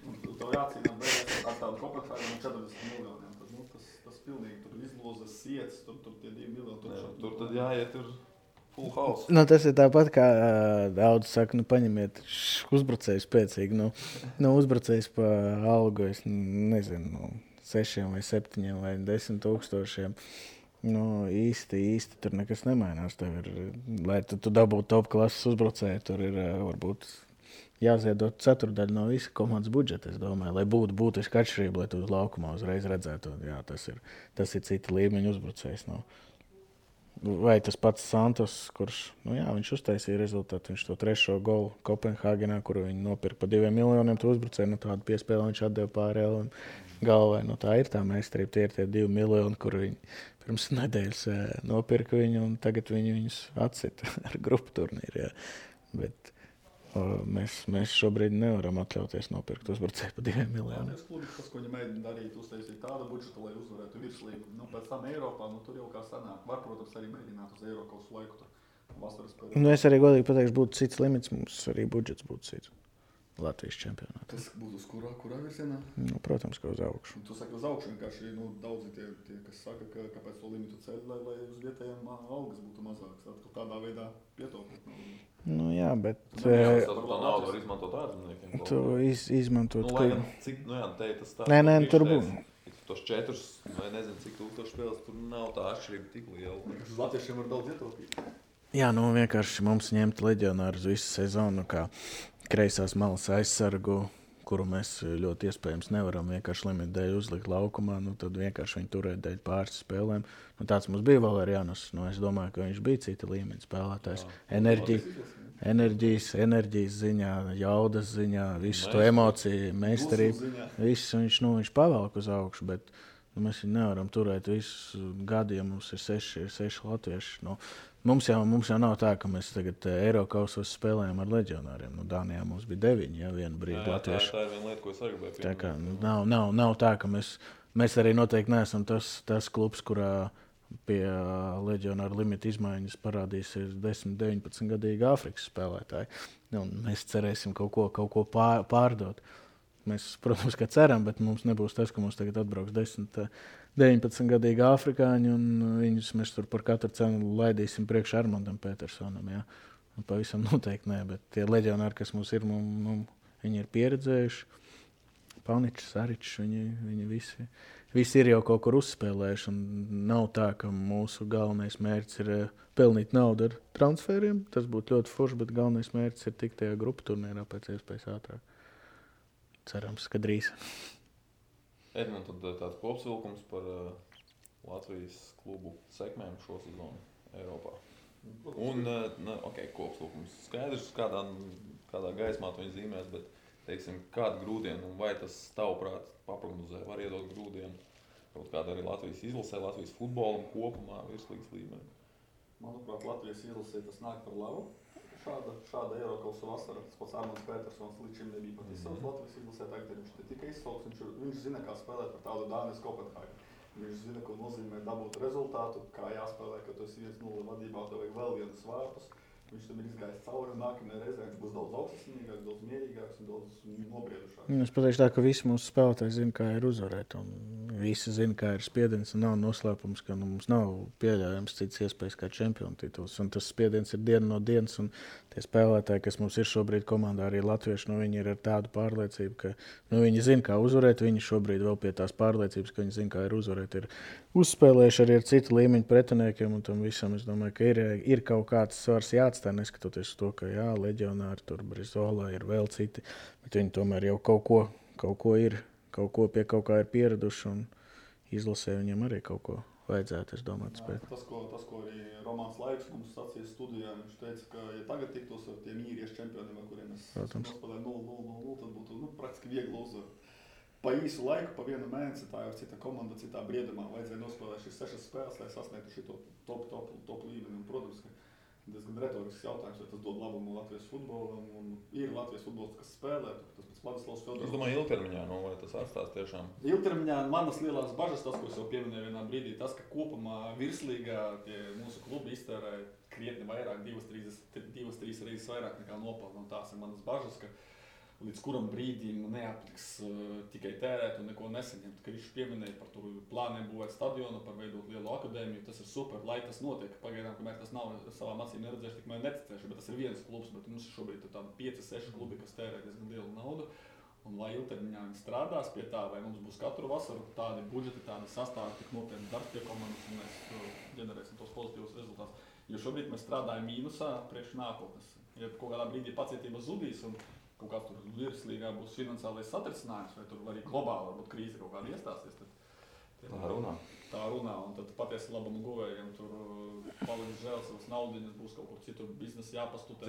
Tev jācīnās beigās ar tādu Kopenhāgenu 40 miljoniem. Tad, tas pilnīgi tur izlozes sietas, tur tie 2 miljoni. Tur tad jāiet Full house. Nu, tas ir tāpat, kā daudz saka, paņemiet uzbrucēju spēcīgi. Uzbrucējs pa algu, es nezinu, 6 vai 7 vai 10 tūkstošiem. Īsti tur nekas nemainās. Lai tu dabūtu top klases uzbrucēju, tur ir varbūt jāziedot ceturdaļu no visa komandas budžeta, es domāju, lai būtu būtiski atšķirība, lai tu uz laukumā uzreiz redzētu. Jā, tas ir cita līmeņa uzbrucējs. Vai tas pats Santos, kurš viņš uztaisīja rezultātu, viņš to 3. golu Kopenhāgenā, kuru viņi nopirka par 2 miljoniem, to uzbrucēju, tādu piespēli viņš atdeva pāri galvai. Tā ir tā meistarība, tie ir tie 2 miljoni, kur viņi pirms nedēļas nopirka viņu, un tagad viņus atsita ar grupu turnīru. Bet mēs šobrīd nevaram atļauties nopirkt uzbrucēju par 2 miljoniem. Tas klubi, tas, ko viņi mēģina darīt, uztaisīt tādu budžetu, lai uzvarētu virslīgu. Pēc tam Eiropā, tur jau kā sanāk. Var, protams, arī mēģināt uz Eiropas laiku tur vasaras periodu. Es arī godīgi pateikšu, būtu cits limits, mums arī budžets būtu cits. Latvijas čempionātā. Tas būtu uz kurā virzienā? Protams, ka uz augšu. Tu saki uz augšu, vienkārši daudzi tie, kas saka, ka kāpēc to limitu ceļ, lai uz vietējiem algas būtu mazākas. Tad tādā veidā pietaupīt. Jā, bet... Tā naudu var izmantot ārzemniekiem. Tu izmantot... Lai gan cik, te tas tā... Nē, tur būtu. Tos 4 vai nezinu, cik tūkstoši spēles, tur nav tā atšķirība tik liela. Uz latviešiem var daudz ietaupīt. Jā, vienkārši mums ņemt leģionāru uz visu sezonu, kā kreisās malas aizsargu, kuru mēs ļoti iespējams nevaram vienkārši limitu dēļ uzlikt laukumā, tad vienkārši viņu turēt dēļ pāris spēlēm. Tāds mums bija Valerianos. Es domāju, ka viņš bija cita līmeņa spēlētājs. Enerģijas ziņā, jaudas ziņā, visu to emociju, meistarību. Viņš pavelk uz augšu, bet mēs viņu nevaram turēt visus gadu, ja mums ir 6 latvieši. Mums jau nav tā, ka mēs tagad Eirokausos spēlējam ar leģionāriem. Dānijā mums bija 9, vienu brīdi latvieši. Tā ir viena lieta, ko es arī gribēju. Tā kā nav tā, ka mēs arī noteikti neesam tas klubs, kurā pie leģionāra limita izmaiņas parādīsies 10, 19 gadīgi Āfrikas spēlētāji. Mēs cerēsim kaut ko pārdot. Mēs, protams, ka ceram, bet mums nebūs tas, ka mums tagad atbrauks 10, 19 gadīgi afrikāņi, un viņus mēs tur par katru cenu laidīsim priekš Armandam Petersonam. Ja? Pavisam noteikti nē, bet tie leģionāri, kas mums ir, viņi ir pieredzējuši. Pauničs, Saričs, viņi visi ir jau kaut kur uzspēlējuši, un nav tā, ka mūsu galvenais mērķis ir pelnīt naudu ar transferiem. Tas būtu ļoti forši, bet galvenais mērķis ir tikt tajā grupu turnīrā pēc iespējas ātrāk. Cerams, ka drīz. Edmund, tad tāds kopsavilkums par Latvijas klubu sekmēm šo sezonu Eiropā. Un, kopsavilkums skaidrs, kādā gaismā to viņi zīmēs, bet, teiksim, kādu grūdienu, un vai tas tavuprāt paprognozē, var iedot grūdienu kaut kādu arī Latvijas izlasē, Latvijas futbolam kopumā, virslīgas līmenī? Manuprāt, Latvijas izlasē tas nāk par labu. Šāda Eirokausa vasara, tas pats Armands Petersons līdz šim nebija pat izsauks Latvijas izlasē, tagad viņš ne tikai izsauks, viņš zina, kā spēlēt par tādu Dānijas Kopenhāgenu. Viņš zina, ko nozīmē dabūt rezultātu, kā jāspēlē, ka tu esi 1-0 vadībā, tev vajag vēl vienus vārtus. Viņš tam ir izgājis cauri, un nākamajā reizē viņš būs daudz augstsmīgāks, daudz mierīgāks un daudz nobriedušāks. Es pateikšu tā, ka visi mūsu spēlētāji zina, kā ir uzvarēt, un visi zina, kā ir spiediens, un nav noslēpums, ka mums nav pieļaujams cits iespējas kā čempionu tituls, un tas spiediens ir diena no dienas, un tie spēlētāji, kas mums ir šobrīd komandā, arī latvieši, viņi ir ar tādu pārliecību, ka viņi zina, kā uzvarēt, viņi šobrīd vēl pie tās pārliecības, ka viņi zina, kā ir uzvarēt, ir uzspēlējuši arī ar citu līmeņu pretiniekiem, un tam visam es domāju, ka ir kaut kāds svars jāatstāj, neskatoties uz to, ka leģionāri tur Brizola ir vēl citi, bet viņi tomēr jau kaut ko ir, pie kaut kā ir pieraduši, un izlasē viņiem arī kaut ko vajadzētu, es domāju, spēt. Tas, ko arī Romāns Laiks mums sacīja studijā, viņš teica, ka ja tagad tiktos ar tiem īriešu čempioniem, ar kuriem es nospēlēju 0-0, tad būtu praktiski viegli uzvaru. Pa īsu laiku, pa vienu mēnesi, tā jau cita komanda, citā briedumā vajadzēja nospēlēt šīs 6 spēles, lai sasniegtu šito top līmeni. Un, protams, ka diezgan retorisks jautājums, vai tas dod labumu Latvijas futbolam. Un ir Latvijas futbols, kas spēlē, tas pēc Vladislavs Fedorovs. Es domāju, ilgtermiņā, vai tas atstās tiešām? Ilgtermiņā manas lielās bažas, tas, ko es jau pieminēju vienā brīdī, tas, ka kopumā virslīgā tie mūsu klubi iztērē krietni vairāk, 2-3 reizes vairāk nekā nopelna. Un tās ir manas bažas, ka līdz kuram brīdim neatliks tikai tērēt un neko nesaņemt. Ka viņš pieminēja par plāniem būvēt stadionu, par veidot lielu akadēmiju. Tas ir super, lai tas notiek. Pagaidām, kamēr tas nav savām acīm neredzējuši, tikmēr neticējuši, bet tas ir viens klubs, bet mums šobrīd ir tādi 5-6 klubi, kas tērē diezgan lielu naudu. Un lai ilgtermiņā viņi strādās pie tā, vai mums būs katru vasaru tādi budžeti, tādi sastāvi, tik nopietni darbs pie komandas, un mēs ģenerēsim tos pozitīvus rezultātus. Jo šobrīd mēs strādājam mīnusā priekš nākotnes. Ja kaut kādā brīdī pacietība zudīs un kaut kāds tur virslīgā būs finansiālais satricinājums, vai tur arī globāli varbūt krīze kaut kāda iestāsies, tad tā runā, un tad patiesi labam guvējiem tur paliks žēl savas naudiņas, būs kaut kur citur biznesa jāpastutē.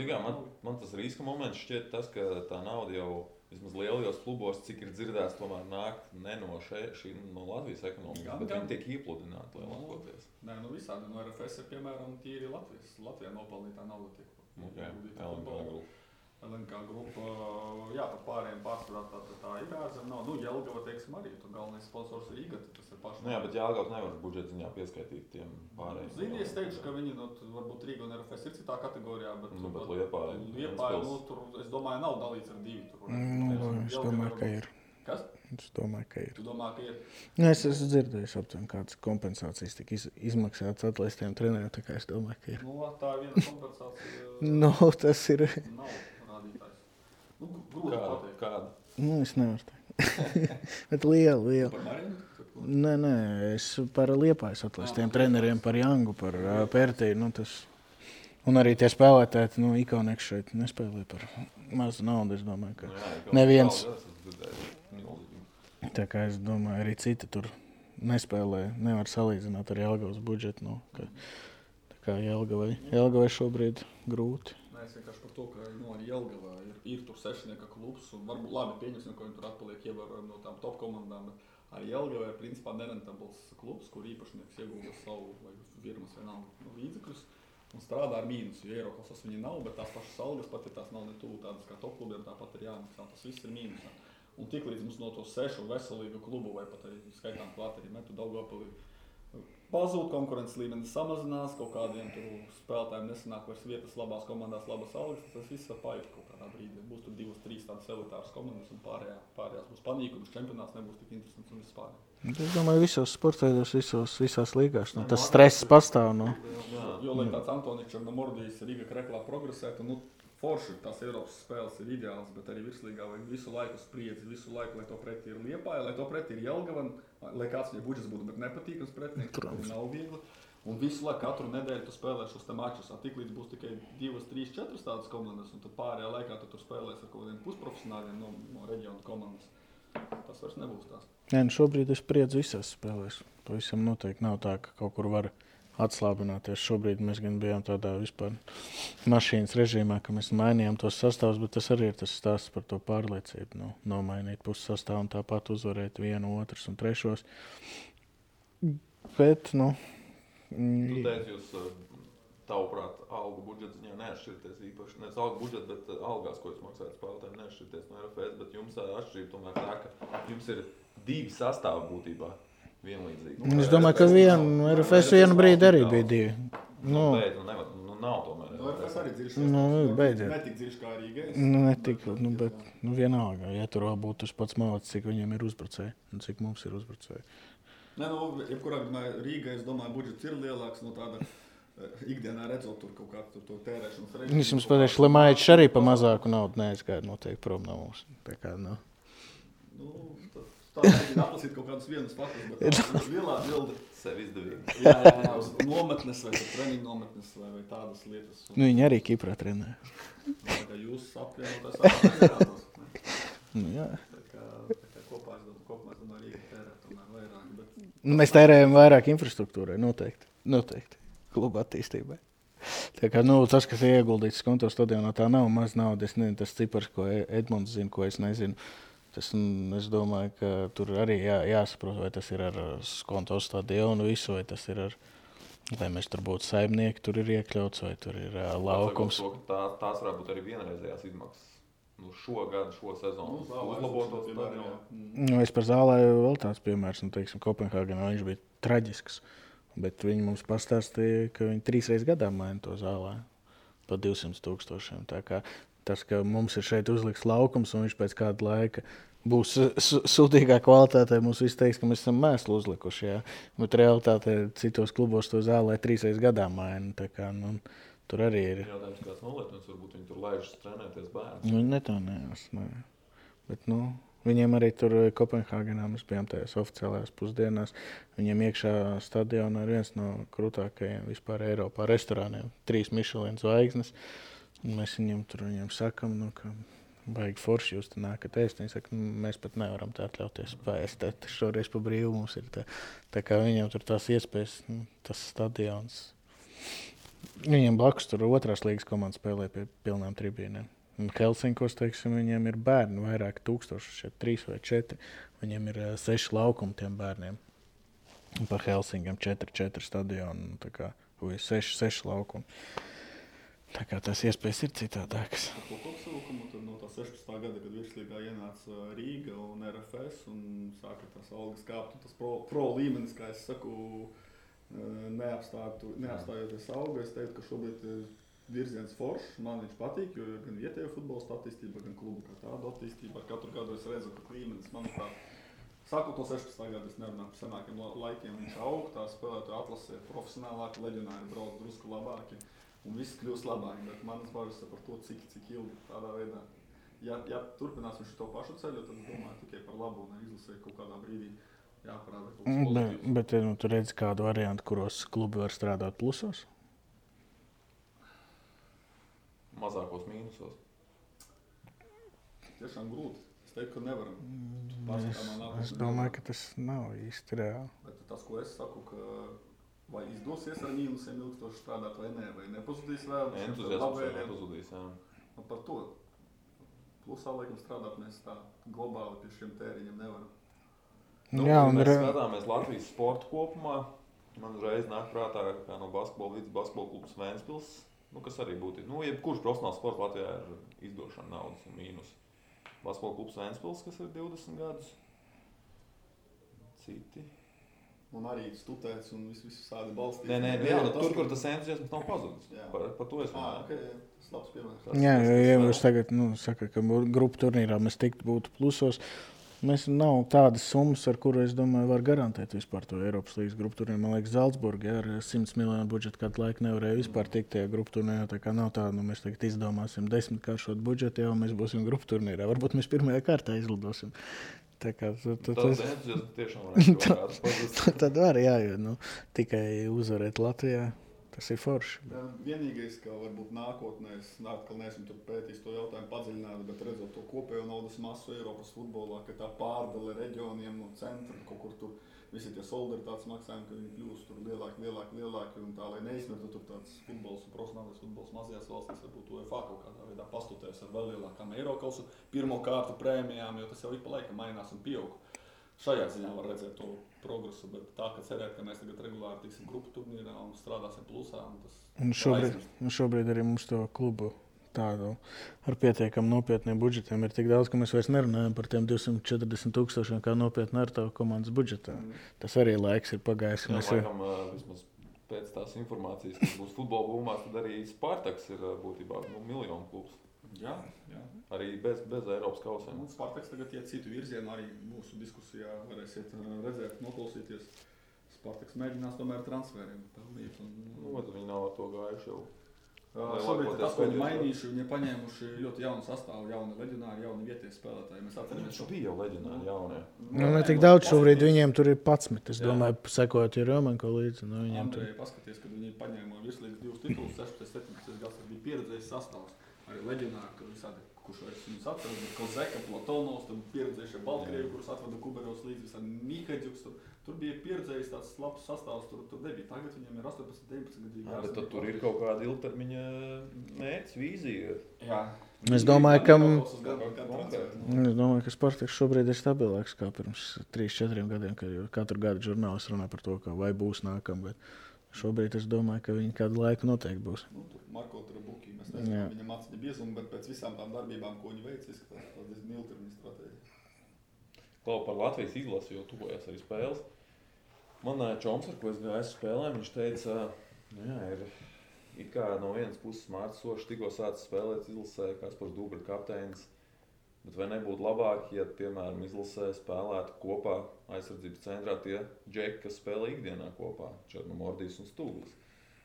Man tas riska moments šķiet tas, ka tā nauda jau vismaz lielajos klubos, cik ir dzirdēts, tomēr nāk ne no Latvijas ekonomikas, bet viņi tiek iepludināti lielākoties. Nē, visādi. No RFS ir, piemēram, tīri Latvijā nopelnītā nauda tiek. LNK grupa, jā, par pārējiem pārsvarā tā ir ārzem nav. Jelgava, teiksim, arī tur galvenais sponsors ir IGAT, tas ir paši. Jā, bet Jelgavas nevar budžeta ziņā pieskaitīt tiem pārējiem. Zini, es teikšu, ka viņi, varbūt Rīga un RFS ir citā kategorijā, bet Liepāja, es domāju, nav dalīts ar divi tur. Es domāju, ka ir. Kas? Es domāju, ka ir. Tu domā, ka ir? Es esmu dzirdējis aptuveni, kādas kompensācijas tika izmaksātas atlaistiem treneriem, tā kā es domāju, ka ir. Tā ir viena kompensācija. Tas ir. Nav rādītājs. Grūti pateikt. Kāda? Es nevaru teikt. Bet liela. Par Marinu? Nē, es par Liepājas atlaistiem treneriem, par Jangu, par Pērtīju, tas. Un arī tie spēlētāji, Ikonieks šeit nespēlē par mazu naudu, es domāju, ka neviens. Tā kā es domāju, arī citi tur nespēlē, nevar salīdzināt ar Jelgavas budžetu. Tā kā Jelgavai šobrīd grūti. Es vienkārši par to, ka arī Jelgavā ir tur sešnieka klubs, un varbūt labi pieņemsim, ka viņi tur atpaliek ievērojami no tām top komandām, bet arī Jelgavā ir principā nerentabls klubs, kur īpašnieks iegulda savu vai firmas vienalga līdzekļus un strādā ar mīnusu. Jo Eiroklasas viņi nav, bet tās pašas algas, pat ja tās nav ne tuvu tādas kā top klubiem, tāpat ir jāmaksā. Tas viss ir mīnusā. Un tiklīdz mums no to 6 veselīgu klubu vai pat arī skaitām klāt arī Metu Daugavpili pazūd, konkurences līmenis samazinās, kaut kādiem tur spēlētājiem nesanāk vairs vietas labās komandās, labas algas, tas viss var paiet kaut kādā brīdī. Būs tur 2-3 tādas elitāras komandas un pārējās būs panīkums, čempionāts nebūs tik interesants un vispār. Es domāju, visos sporteidos, visās līgās, tas stress pastāv. Jo, lai tāds Antoničs Černomordijs Riga Kreklā progresētu, forši tās Eiropas spēles ir ideāls, bet arī virslīgā vajag visu laiku spriedzi, visu laiku, lai to pretī ir Liepāja, lai to pretī ir Jelgava, lai kāds viņai budžets būtu, bet nepatīkams pretinieks, tur nav viegli. Un visu laiku, katru nedēļu tu spēlē šos te mačus, tiklīdz būs tikai 2, 3, 4 tādas komandas, un tad pārējā laikā tu tur spēlēs ar kaut kādiem pusprofesionāļiem no reģionu komandas. Tas vairs nebūs tās. Šobrīd es spriedzu visās spēlēs. Pavisam noteikti nav tā, ka kaut kur var atslābināties. Šobrīd mēs gan bijām tādā vispār mašīnas režīmā, ka mēs mainījām tos sastāvus, bet tas arī ir tas stāsts par to pārliecību. Nomainīt puses sastāvu un tāpat uzvarēt 1, 2 un 3. Bet, Tu teici, jūs tavuprāt algu budžets ziņā neatšķirties īpaši. Nevis algu budžets, bet algās, ko jūs maksājat spēlētājiem, neatšķirties no RFS, bet jums atšķirība tomēr tā, ka jums ir 2 sastāvi būtībā. Vienlīdzīgi. Es domāju, ka RFS vienu brīdi arī bija 2. Nav tomēr. RFS arī dziļš. Beidziet. Netik dziļš kā Rīgai. Netik, bet vienalga. Ja tur vēl būtu tas pats malacis, cik viņiem ir uzbrucēji un cik mums ir uzbrucēji. Jebkurā gadījumā Rīgai, es domāju, budžets ir lielāks no tāda ikdienā redzot tur kaut kādu to tērēšanas režīmu. Es jums pateikšu, Lemaičs arī pa mazāku naudu neaizgāja noteikti prom no mums. Tā kā, Tā ir atlasīt kaut kādus vienus faktus, bet tā lielā bilde sev izdevīgi. Jā, uz nometnes vai treniņu nometnes vai tādas lietas. Viņi arī Kiprā trenē. Jūs apvienotās apvienotās. Jā. Tā kā kopā es domāju, Rīga tērē tomēr vairāk. Bet... Mēs tērējam vairāk infrastruktūrai, noteikti. Kluba attīstībai. Tā kā, tas, kas ir ieguldīts konto stadionā, tā nav maz nauda. Es nezinu, tas cipars, ko Edmunds zina, ko es nezinu. Es domāju, ka tur arī jāsaprot, vai tas ir ar konto stadionu visu, vai tas ir ar, lai mēs tur būtu saimnieki, tur ir iekļauts, vai tur ir laukums. Tās varētu būt arī vienreizējās izmaksas. Šo sezonu uzlabotos stadionu. Es par Zālēju vēl tāds piemērs, Kopenhāgenā viņš bija traģisks, bet viņi mums pastāstīja, ka viņi 3 reizes gadā maina to Zālēju pa 200 000. Tā kā tas, ka mums ir šeit uzliks laukums un viņš pēc kāda laika būs sūtīgā kvalitātē, mums viss teiks, ka mēs esam mēslu uzlikuši. Jā. Bet realitātē citos klubos to zālē 3 gadā maina. Tā kā, tur arī ir. Jautājums, kāds nolietums, varbūt viņi tur laižas trenēties bērns. Viņi ne tā neesmu. Bet, viņiem arī tur Kopenhāgenā mēs bijām tajās oficiālajās pusdienās. Viņiem iekšā stadionā ir viens no krūtākajiem vispār Eiropā restorāniem. 3 Michelin zvaigznes. Mēs viņiem sakam, ka baigi forši jūs te nākat ēst. Viņi saka, mēs pat nevaram tā atļauties paēst. Šoreiz pa brīvu mums ir tā kā viņiem tur tās iespējas, tas stadions. Viņiem blakus tur 2. līgas komanda spēlē pie pilnām tribīnēm. Un Helsinkos, teiksim, viņiem ir bērni vairāk tūkstoši, šeit 3 vai 4. Viņiem ir 6 laukumi tiem bērniem. Un pa Helsingam 4 stadionu, tā kā 6 laukumi. Tā kā tās iespējas ir citādākas. Ar to kopsavilkumu tad no tā 16. gada, kad virslīgā ienāca Rīga un RFS un sāka tās algas kāpt, un tas pro līmenis, kā es saku, neapstājoties auga, es teiktu, ka šobrīd virziens foršs, man viņš patīk, jo gan vietējo futbolistu attīstība, gan klubu kā tādu attīstība. Katru gadu es redzu, ka līmenis, manuprāt, sākot no 16. gada, es nerunāju par senākiem laikiem, viņš aug, tā spēlētāju atlasē profesionālāki, leģionāri brauc drusku labāki. Un viss kļūst labāk, bet manas bažas par to, cik ilgi tādā veidā. Ja turpināsim šo pašu ceļu, tad es domāju tikai par labu un izlasē kaut kādā brīdī jāparāda kaut kas pozitīvs. Bet tu redzi kādu variantu, kuros klubi var strādāt plusos? Mazākos mīnusos. Tiešām grūti. Es teiktu, ka nevaram. Es domāju, ka tas nav īsti reāli. Bet tas, ko es saku, ka vai izdosies ar mīnusiem ilgstoši strādāt vai nē, vai nepazudīs vēl. Entuziasms nepazudīs, jā. Un par to. Plusā, laikam, strādāt mēs tā globāli pie šiem tēriņiem nevaram. Jā, un mēs skatāmies Latvijas sportu kopumā. Man uzreiz nāk prātā, kā no basketbola līdz basketbola klubs Ventspils, kas arī būtu. Jebkurš profesionāls sports Latvijā ir izdošana naudas un mīnus. Basketbola klubs Ventspils, kas ir 20 gadus. Citi. Un arī stutēts un viss sādi balstīt. Nē, tur, kur tas entuziasms nav pazudis. Par to es runāju. Okay. Labs piemērs. Jā, ja jūs tagad saka, ka grupu turnīrā mēs būtu plusos, mēs nav tādas summas, ar kuru, es domāju, var garantēt vispār to Eiropas līgas grupu turnīru. Man liekas, Zalcburga ar 100 miljonu budžetu kādu laiku nevarēja vispār tikt tajā grupu turnīrā. Tā kā nav tā, mēs tagad izdomāsim 10-kāršot budžetu, jau mēs būsim grupu turnīrā. Varbūt mēs pirmajā kārtā izlidosim. Tā kā tas tiešām varētu kaut kāds pazust. Tad var, jā, jo tikai uzvarēt Latvijā, tas ir forši. Vienīgais, ka varbūt nākotnē, es atkal neesmu tur pētījis to jautājumu padziļināt, bet redzot to kopējo naudas masu Eiropas futbolā, ka tā pārdale reģioniem no centra, kaut kur tur visi tie solidaritātes maksājumi, ka viņi kļūst tur lielāki, un tā, lai neizmirtu tur tāds futbols un profesionālais futbols mazajās valstīs, varbūt UEFA kaut kādā veidā pastutēs ar vēl lielākām Eirokausu pirmo kārtu prēmijām, jo tas jau ik pa laikam mainās un pieaug. Šajā ziņā var redzēt to progresu, bet tā, ka cerēt, ka mēs tagad regulāri tiksim grupu turnīrā un strādāsim plusā, un tas šobrīd arī mums to klubu tādu ar pietiekam nopietniem budžetiem ir tik daudz, ka mēs vairs nerunājam par tiem 240,000 kā nopietni ar tavu komandas budžetā. Tas arī laiks ir pagājis. Laikam, vismaz pēc tās informācijas, kas būs futbola būmās, tad arī Spartaks ir būtībā miljonu klubs. Jā. Arī bez Eiropas kausiem. Spartaks tagad iet citu virzienu, arī mūsu diskusijā varēsiet redzēt, noklausīties. Spartaks mēģinās tomēr transferiem pelnīt. Viņi nav ar to gājuši jau. Šobrīd tas, ko viņi mainījuši, viņi paņēmuši ļoti jaunu sastāvu, jauni leģionāri, jauni vietie spēlētāji. Mēs atceramies, ka bija jau leģionāri jaunie. Ne tik daudz šobrīd, viņiem tur ir 11. Es domāju, sekojot Romanko līdzi. Andrei, paskaties, kad viņi paņēma virslīgas 2 titulus, 16, 17 gads, tas bija pieredzējis sastāvs. Arī leģionāri, ka visādi, kurš vairs viņus atceras, bet Kozeka, Platonovs, tad pieredzējušie Baltkrievi, kurus atvada Kuberovs līdzi, visādi Mihēģuks. Tur bija pieredzējis tāds labs sastāvs, tur nebija. Tagad viņiem ir 18, 19 gadīgi. Bet tad tur ir kaut kāda ilgtermiņa mērķis, vīzija. Jā. Es domāju, ka Spartaks šobrīd ir stabilāks kā pirms 3-4 gadiem, kad katru gadu žurnālisti runā par to, ka vai būs nākam, bet šobrīd es domāju, ka viņi kādu laiku noteikti būs. Marko Trabuki, mēs nezinām viņam aciņa biezumu, bet pēc visām tām darbībām, ko viņi veic, izskatās tas diezgan ilgtermiņa stratēģija. Klau par Latvijas izlasi, jo tuvojas arī spēles. Man Čoms, ar ko es gāju spēlēm, viņš teica, ir it kā no vienas puses Mārcis Sošs tikko sācis spēlēt izlasē, Kaspars Dubra kapteinis. Bet vai nebūtu labāk, ja, piemēram, izlasē spēlētu kopā aizsardzības centrā tie džeki, kas spēlē ikdienā kopā, Černomordijs un Stūglis,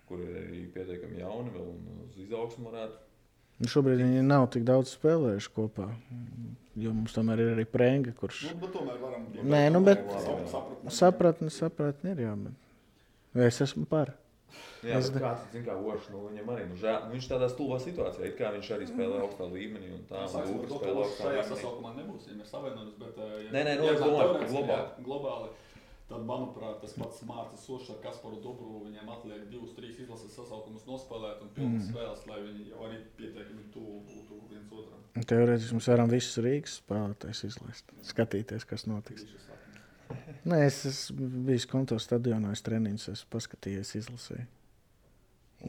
kuri ir arī pietiekami jauni vēl un uz izaugsmu varētu. Šobrīd viņi nav tik daudz spēlējuši kopā, jo mums tomēr ir arī Prenga, kurš... Bet tomēr varam... Nē, sapratni ir, jā, bet es esmu par. Jā, bet kāds, zin kā Ošs, viņam arī, viņš tādā stulbā situācijā, it kā viņš arī spēlē augstā līmenī un tā, un Dubra spēlē augstā līmenī. Šajā sasaukumā nebūs, ja mēs savienojamies, bet... Nē, es domāju, globāli. Tad, manuprāt, tas pats Mārcis Sošs ar Kasparu Dubru, viņiem atliek 2-3 izlases sasaukumus nospēlēt un pilnas spēles, lai viņi jau arī pietiekami būtu viens otram. Teorētiski mēs varam visus Rīgas spēlētājus izlaist, skatīties, kas notiks. Nē, es esmu bijis Konto stadionā, es treniņus esmu paskatījies, izlasēju.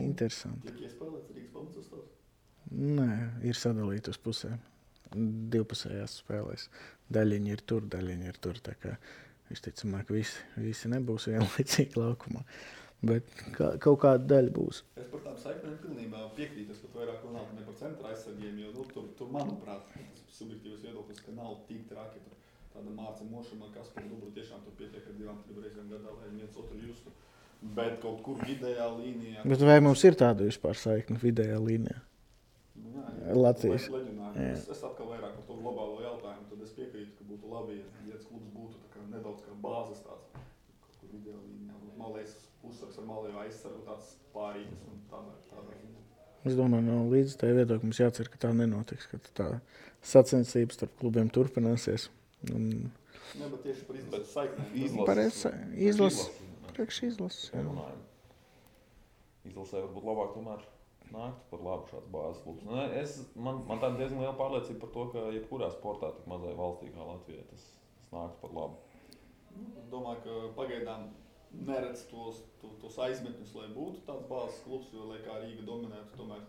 Interesanti. Tiek iespēlēts Rīgas pamatsastāvs? Nē, ir sadalīti uz pusēm. Divpusējās spēlēs. Daļiņi ir tur, tā kā visticamāk visi nebūs vienlaicīgi laukumā. Bet kaut kāda daļa būs. Es par tām saiknēm pilnībā piekrītu, ka vairāk runāt ne par centra aizsargiem, jo tur manuprāt, tas subjektīvs viedoklis, ka nav tik traki. Tāda Mārca Mošama, Kasparu Dubru tiešām tur pietiek ar 2-3 reizēm gadā, lai viens otru justu. Bet kaut kur vidējā līnijā... Bet vai mums ir tāda vispār saikne vidējā līnijā? Jā, Latvijas. Es atkal vairāk par to globālo jautājumu, tad es piekrītu, ka būtu labi, ja viens klubs būtu tā kā nedaudz kā bāzes tāds, kaut kur vidējā līnijā. Malējs uzsvars ar malējo aizsargu tāds pārīgas un tādā ziņā. Es domāju, no līdz tai viedokļi mums jācer, ka tā nenotiks, ka tā sacensības starp klubiem turpināsies. Jā, bet tieši par izlases saiknēm. Priekš izlases. Izlasē varbūt labāk tomēr nāktu par labu šāds bāzes klubs. Man tā diezgan liela pārliecība par to, ka jebkurā sportā tik mazai valstī kā Latvijai tas nāktu par labu. Es domāju, ka pagaidām neredz tos aizmetņus, lai būtu tāds bāzes klubs, jo, lai kā Rīga dominētu, tomēr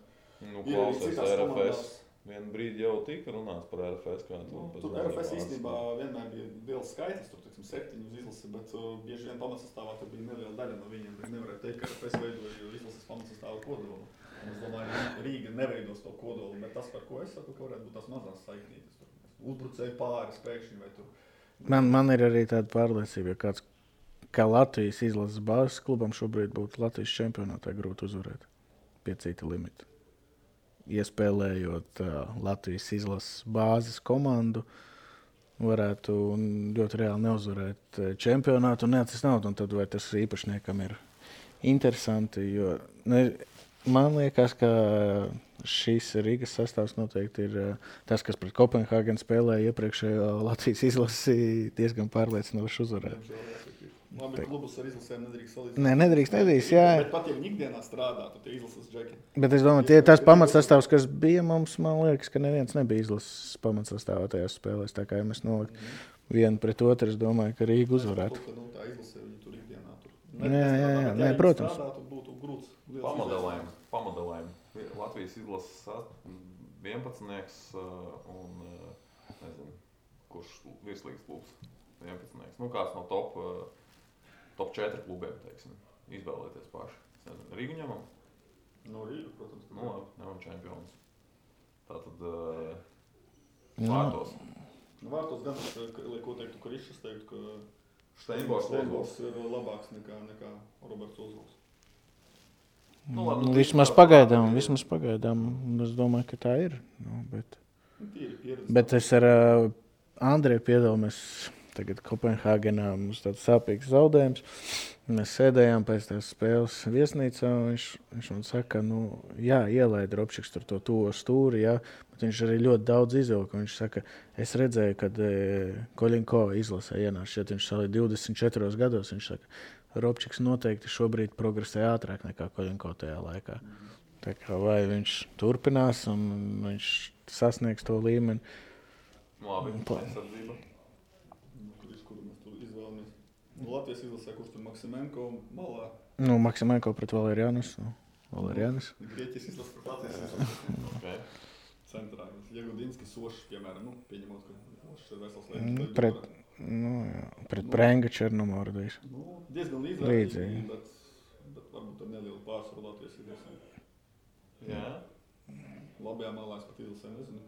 ir arī citās komandās. Vienu brīdi jau tika runāts par RFS. Tur RFS īstenībā vienmēr bija liels skaitlis, tur 7 uz izlasi, bet bieži vien pamatsastāvā tur bija neliela daļa no viņiem. Nevarēja teikt, ka RFS veidoja izlases pamatsastāvu kodolu. Es domāju, Rīga neveidos to kodolu, bet tas, par ko es saku, ka varētu būt tās mazās saiknītes. Uzbrucēji pāris pēkšņi vai tur. Man ir arī tāda pārliecība, ja kāds, kā Latvijas izlases bāzes klubam šobrīd būtu Latvijas čempionātā grūti uzvarēt pie cita limita. Iespēlējot Latvijas izlases bāzes komandu, varētu ļoti reāli neuzvarēt čempionātu un neatcist naudu. Un tad vai tas īpašniekam ir interesanti, jo man liekas, ka šīs Rīgas sastāvs noteikti ir tas, kas pret Kopenhāgenu spēlēja iepriekšējo Latvijas izlasi diezgan pārliecinoši uzvarēt. Labi, klubus ar izlasēm nedrīkst salīdzināt. Nē, nedrīkst, jā. Bet pat, ja viņi ikdienā strādā, tad tie izlases džeki. Bet es domāju, tie ir tās pamatsastāvs, kas bija mums, man liekas, ka neviens nebija izlases pamatsastāvā tajās spēlēs. Tā kā ja mēs nolikt vienu pret otru, es domāju, ka Rīga uzvarētu. Tā izlasē viņi tur ikdienā tur. Jā, protams. Strādā, tur būtu grūts. Pamodelējumi. Latvijas izlases 11. un nezinu, kurš virslīgas klubs 11. Kāds no top 4 klubiem, teiksim, izvēlēties paši. Rīgu ņemam? No Rīga, protams. Ņemam čempionus. Tātad vārtos. Vārtos gan, ko teiktu, ka Rišas teiktu, ka Steinbors ir labāks nekā Roberts Ozils. Vismaz pagaidām, es domāju, ka tā ir. Bet es ar Andreju piedalāmies tagad Kopenhāgenā, mums tāds sāpīgs zaudējums. Mēs sēdējām pēc tās spēles viesnīcā, un viņš man saka, ielaida Robčiks tur to tuvo stūri, bet viņš arī ļoti daudz izvilka. Viņš saka, es redzēju, kad Koļinko izlasē ienāca, šeit viņš salīja 24 gados, viņš saka, Robčiks noteikti šobrīd progresē ātrāk nekā Koļinko tajā laikā. Tā kā vai viņš turpinās un viņš sasniegs to līmeni. Labi, aizsardzība. Latvijas izlasē, kurš tur Maksimenko malā? Maksimenko pret Valerianus. Grieķijas izlasē pret Latvijas izlasē. Okay. Centrā. Jegudinski, Sošs, piemēram, pieņemot, ka Sošs ir vesels lietas. Pret Prenga Černomordijs. Diezgan līdzīgi, bet varbūt ar nelielu pārsvaru Latvijas izlasē. Jā. Labajā malā es pat Ilsē nezinu,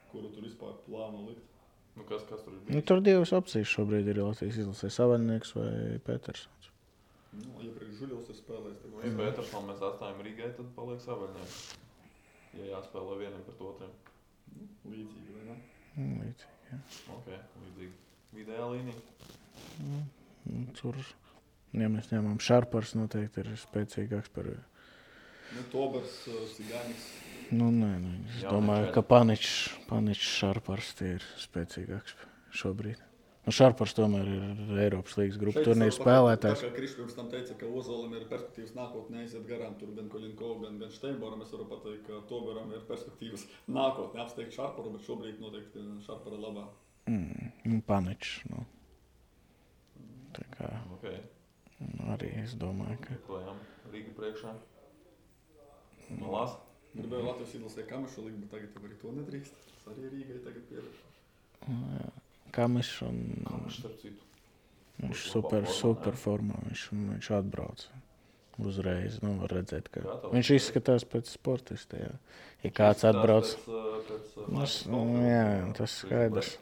kuru tur vispār plāno likt. Nu, kas tur ir Nu, bijis? tur divas opcijas šobrīd ir Latvijas izlasē. Savaļnieks vai Petersons. Nu, iepriekš Žuļovs ir spēlējis. Nu, ja Petersonu mēs atstājam Rīgai, tad paliek Savaļnieks. Ja jāspēlē vienam pret otriem. Nu, līdzīgi, vai ne? Līdzīgi, jā. Ok, līdzīgi. Vidējā līnija. Tur, ja mēs ņemam Šarpars, noteikti ir spēcīgāks par... Nu, Tobers, Sigānis. Nu, nē, es domāju, ka Paničs Šarpars tie ir spēcīgāks šobrīd. Nu, Šarpars tomēr ir Eiropas līgas grupu turnīru spēlētājs. Tā kā Krišs pirms tam teica, ka Ozolim ir perspektīvas nākotnē aiziet garām tur gan Koļinko, gan Steinboram. Es varu pateikt, ka Toberam ir perspektīvas nākotnē apsteigt Šarparu, bet šobrīd noteikti Šarpara labā. Paničs, nu. Tā kā Ok. arī es domāju, ka... Klājām Rīga priekšā. Malās. Gribēju Latvijas izlasē Kamešu likt, bet tagad jau arī to nedrīkst. Tas arī Rīgai tagad pieredz. Kamešs un... Kamešs, starp citu. Viņš super formā. Viņš atbrauc uzreiz. Nu, var redzēt, ka viņš izskatās pēc sportista, jā. Ja kāds atbrauc... Jā, tas skaidrs.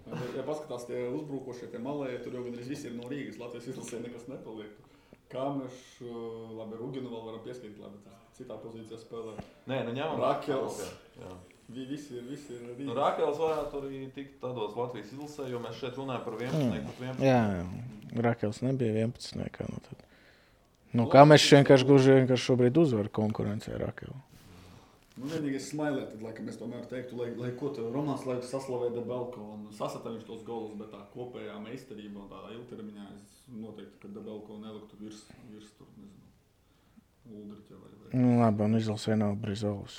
Ja paskatās tie uzbrukošie, tie malēji, tur jau gandrīz visi ir no Rīgas. Latvijas izlasē nekas nepaliek. Kamešs, labi, Ruginu vēl varam pieskaitīt, labi, citā pozīcijā spēlē. Nē, nu ņemam. Rakels. Jā. Visi ir Rīgas. Nu, Rakels varētu arī tikt tādos Latvijas izlasē, jo mēs šeit runājam par 11. Jā, Rakels nebija 11. Nu, tad. Nu, Kamešs vienkārši šobrīd uzvar konkurencē Rakelu. Nu, vienīgais smailē, tad, laikam, es tomēr teiktu, lai ko te Romāns laiku saslavē Debelko un sasata viņš tos golus, bet tā kopējā meistarība un tādā ilgtermiņā es noteikti, ka Debelko neliktu virs tur, nezinu, Uldriķa vai. Nu, labi, un izlasē nav Brizols.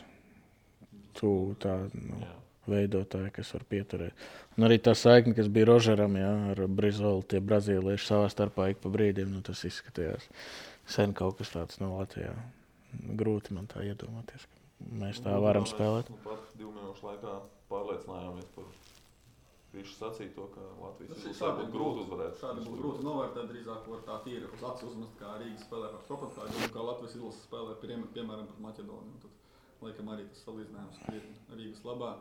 Tu tā, nu, veidotāji, kas var pieturēt. Un arī tā saikne, kas bija Rožeram, jā, ar Brizolu, tie brazīlieši savā starpā ik pa brīdiem, nu, tas izskatījās sen kaut kas tāds no Latvijā. Grūti man tā iedomāties. Mēs tā varam spēlēt. Nu, pat 2 minūšu laikā pārliecinājāmies par visu sacīto, ka Latvijas izlasē būtu grūti uzvarēt. Šādi būtu grūti novērtēt, drīzāk var tā tīri uz acis uzmest, kā Rīga spēlē par Kopenhāgu un kā Latvijas izlase spēlē piemēram par Maķedoniju. Tad, laikam, arī tas salīdzinājums krietni Rīgas labā.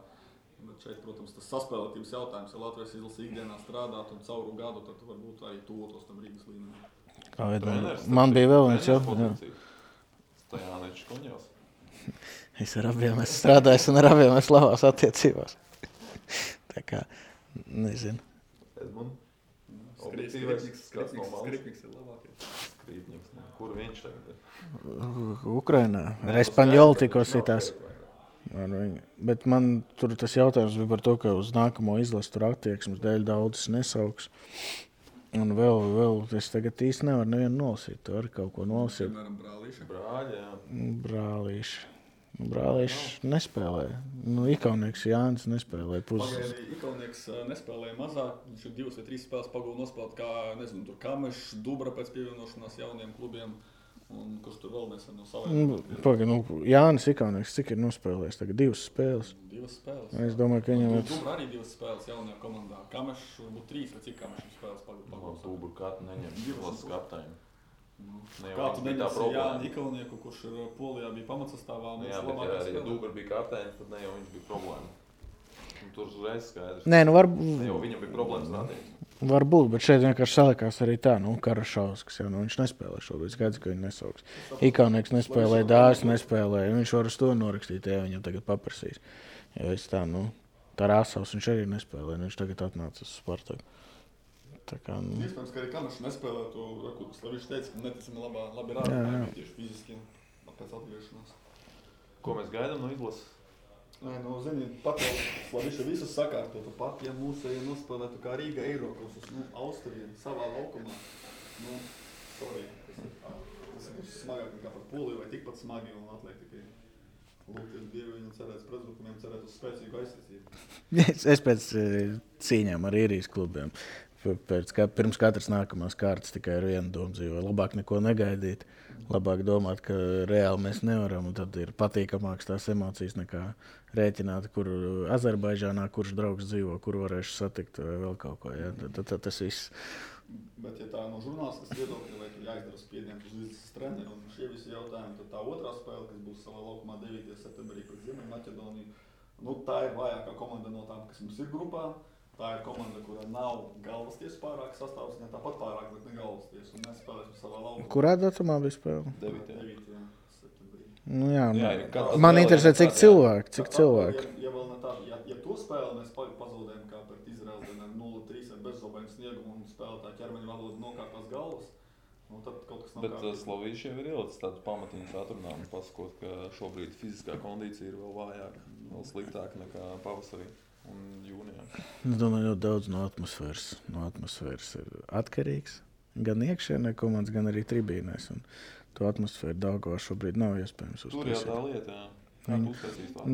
Bet šeit, protams, tas saspēlētības jautājums, ja Latvijas izlase ikdienā strādāt un cauru gadu, tad varbūt arī tuvotos tam Rīgas līmenim. Man bija vēl viens jautājums. Stajāniečs Kuņevs. Es ar abiem esmu strādājis un ar abiem esmu labās attiecībās. Tā kā, nezinu. Edmund. Skripniks ir labākais. Skripniks. Kur viņš tagad ir? Ukrainā. Ar Espaņolu tikko sitās. Bet man tur tas jautājums bija par to, ka uz nākamo izlasu tur attieksmes dēļ daudzas nesauks. Un vēl es tagad īsti nevaru nevienu nolasīt. Tu vari kaut ko nolasīt. Piemēram, Brālīša. Brāļi, jā. Brālīši nespēlē. Nu, Ikaunieks Jānis nespēlē puses. Pagaidī Ikaunieks nespēlēja mazāk. Viņš ir 2 vai 3 spēles pagūda nospēlēt, kā, nezinu, tur Kamešs, Dubra pēc pievienošanās jauniem klubiem. Un kurš tur vēl nesen no saviem. Jānis Ikaunieks, cik ir nospēlējis tagad 2 spēles? 2 spēles. Es domāju, ka viņam ir... Dubra arī 2 spēles jaunajā komandā. Kamešs varbūt 3 vai cik Kamešs spēles pagūda. Dubra kādu neņem izlases kapteiņu. Kā tu neņemsi Jāni Ikauninieku, kurš ir Polijā bija pamatsastāvā? Jā, bet ja Dubra bija kapteinis, tad ne jau viņš bija problēma. Un tur uzreiz skaidrs. Nē, nu Ne jau viņam bija problēmas rādīt. Varbūt, bet šeit vienkārši salikās arī tā, Karašauskas, jau, viņš nespēlē šobrīd, skaidrs, ka viņi nesauks. Ikaunieks nespēlē, Dāvis nespēlē, viņš var uz to norakstīt, ja viņam tagad paprasīs. Jo es tā, Tarasovs viņš arī nespēlē, viņš tagad atnāca uz Spartaku. Tā kā, Iespējams, ka arī Kamešs nespēlē to, viņš teica, ka neticami labi rāda, tieši fiziski pēc atgriešanās. Ko mēs gaidām no izlases? Nē, zini, pat jau Slaviša visus sakārtotu, pat ja mūsēji nospēlētu kā Rīga Eirokosus, Austrija, savā laukumā, sorry, tas ir smagāk nekā par Poliju vai tikpat smagi un atliek tikai lūgties Dievu viņam cerēt pretbrukumiem, cerēt uz spēcīgu aizsardzību. Es pēc cīņām ar īrijas klubiem pirms katras nākamās kārtas tikai ar vienu domu dzīvo. Labāk neko negaidīt, labāk domāt, ka reāli mēs nevaram, un tad ir patīkamāks tās emocijas nekā rēķināt, kur Azerbaidžānā, kurš draugs dzīvo, kur varēšu satikt vai vēl kaut ko. Ja? Tad tas viss. Bet, ja tā no žurnālistas viedokļa, vai tu jāizdara spiedienu uz līdzes treneri un šie visi jautājumi, tad tā otrā spēle, kas būs savā laukumā 9. septembrī pret Ziemeļmaķedoniju, tā ir vājākā komanda no tām, kas mums ir grupā. Tā ir komanda, kurā nav galvasties pārāk sastāvs, ne tāpat pārāk, bet ne galvasties, un mēs spēlēsim savā laukumā. Kurā datumā bija spēle? 9. septembrī. Nu jā, man interesē, cik cilvēki. Ja vēl ne tā, ja to spēli mēs pazaudējam kā pret Izraeli 0-3 ar bezzobainu sniegumu un spēlētāju ķermeņa valodu nokārtās galvas, tad kaut kas nav kārtībā. Bet Slovīši jau ir ielicis tādu pamatiņas atrunājumu, pasakot, ka šobrīd fiziskā kondīcija ir vēl vājāka, vēl sliktāka nekā pavasarī un jūnijā. Es domāju, ļoti daudz no atmosfēras ir atkarīgs. Gan iekšienē komandas, gan arī tribīnēs. Un to atmosfēru Daugavā šobrīd nav iespējams uztaisīt. Tur jau tā lieta, jā. Kā tu uztaisīs tā?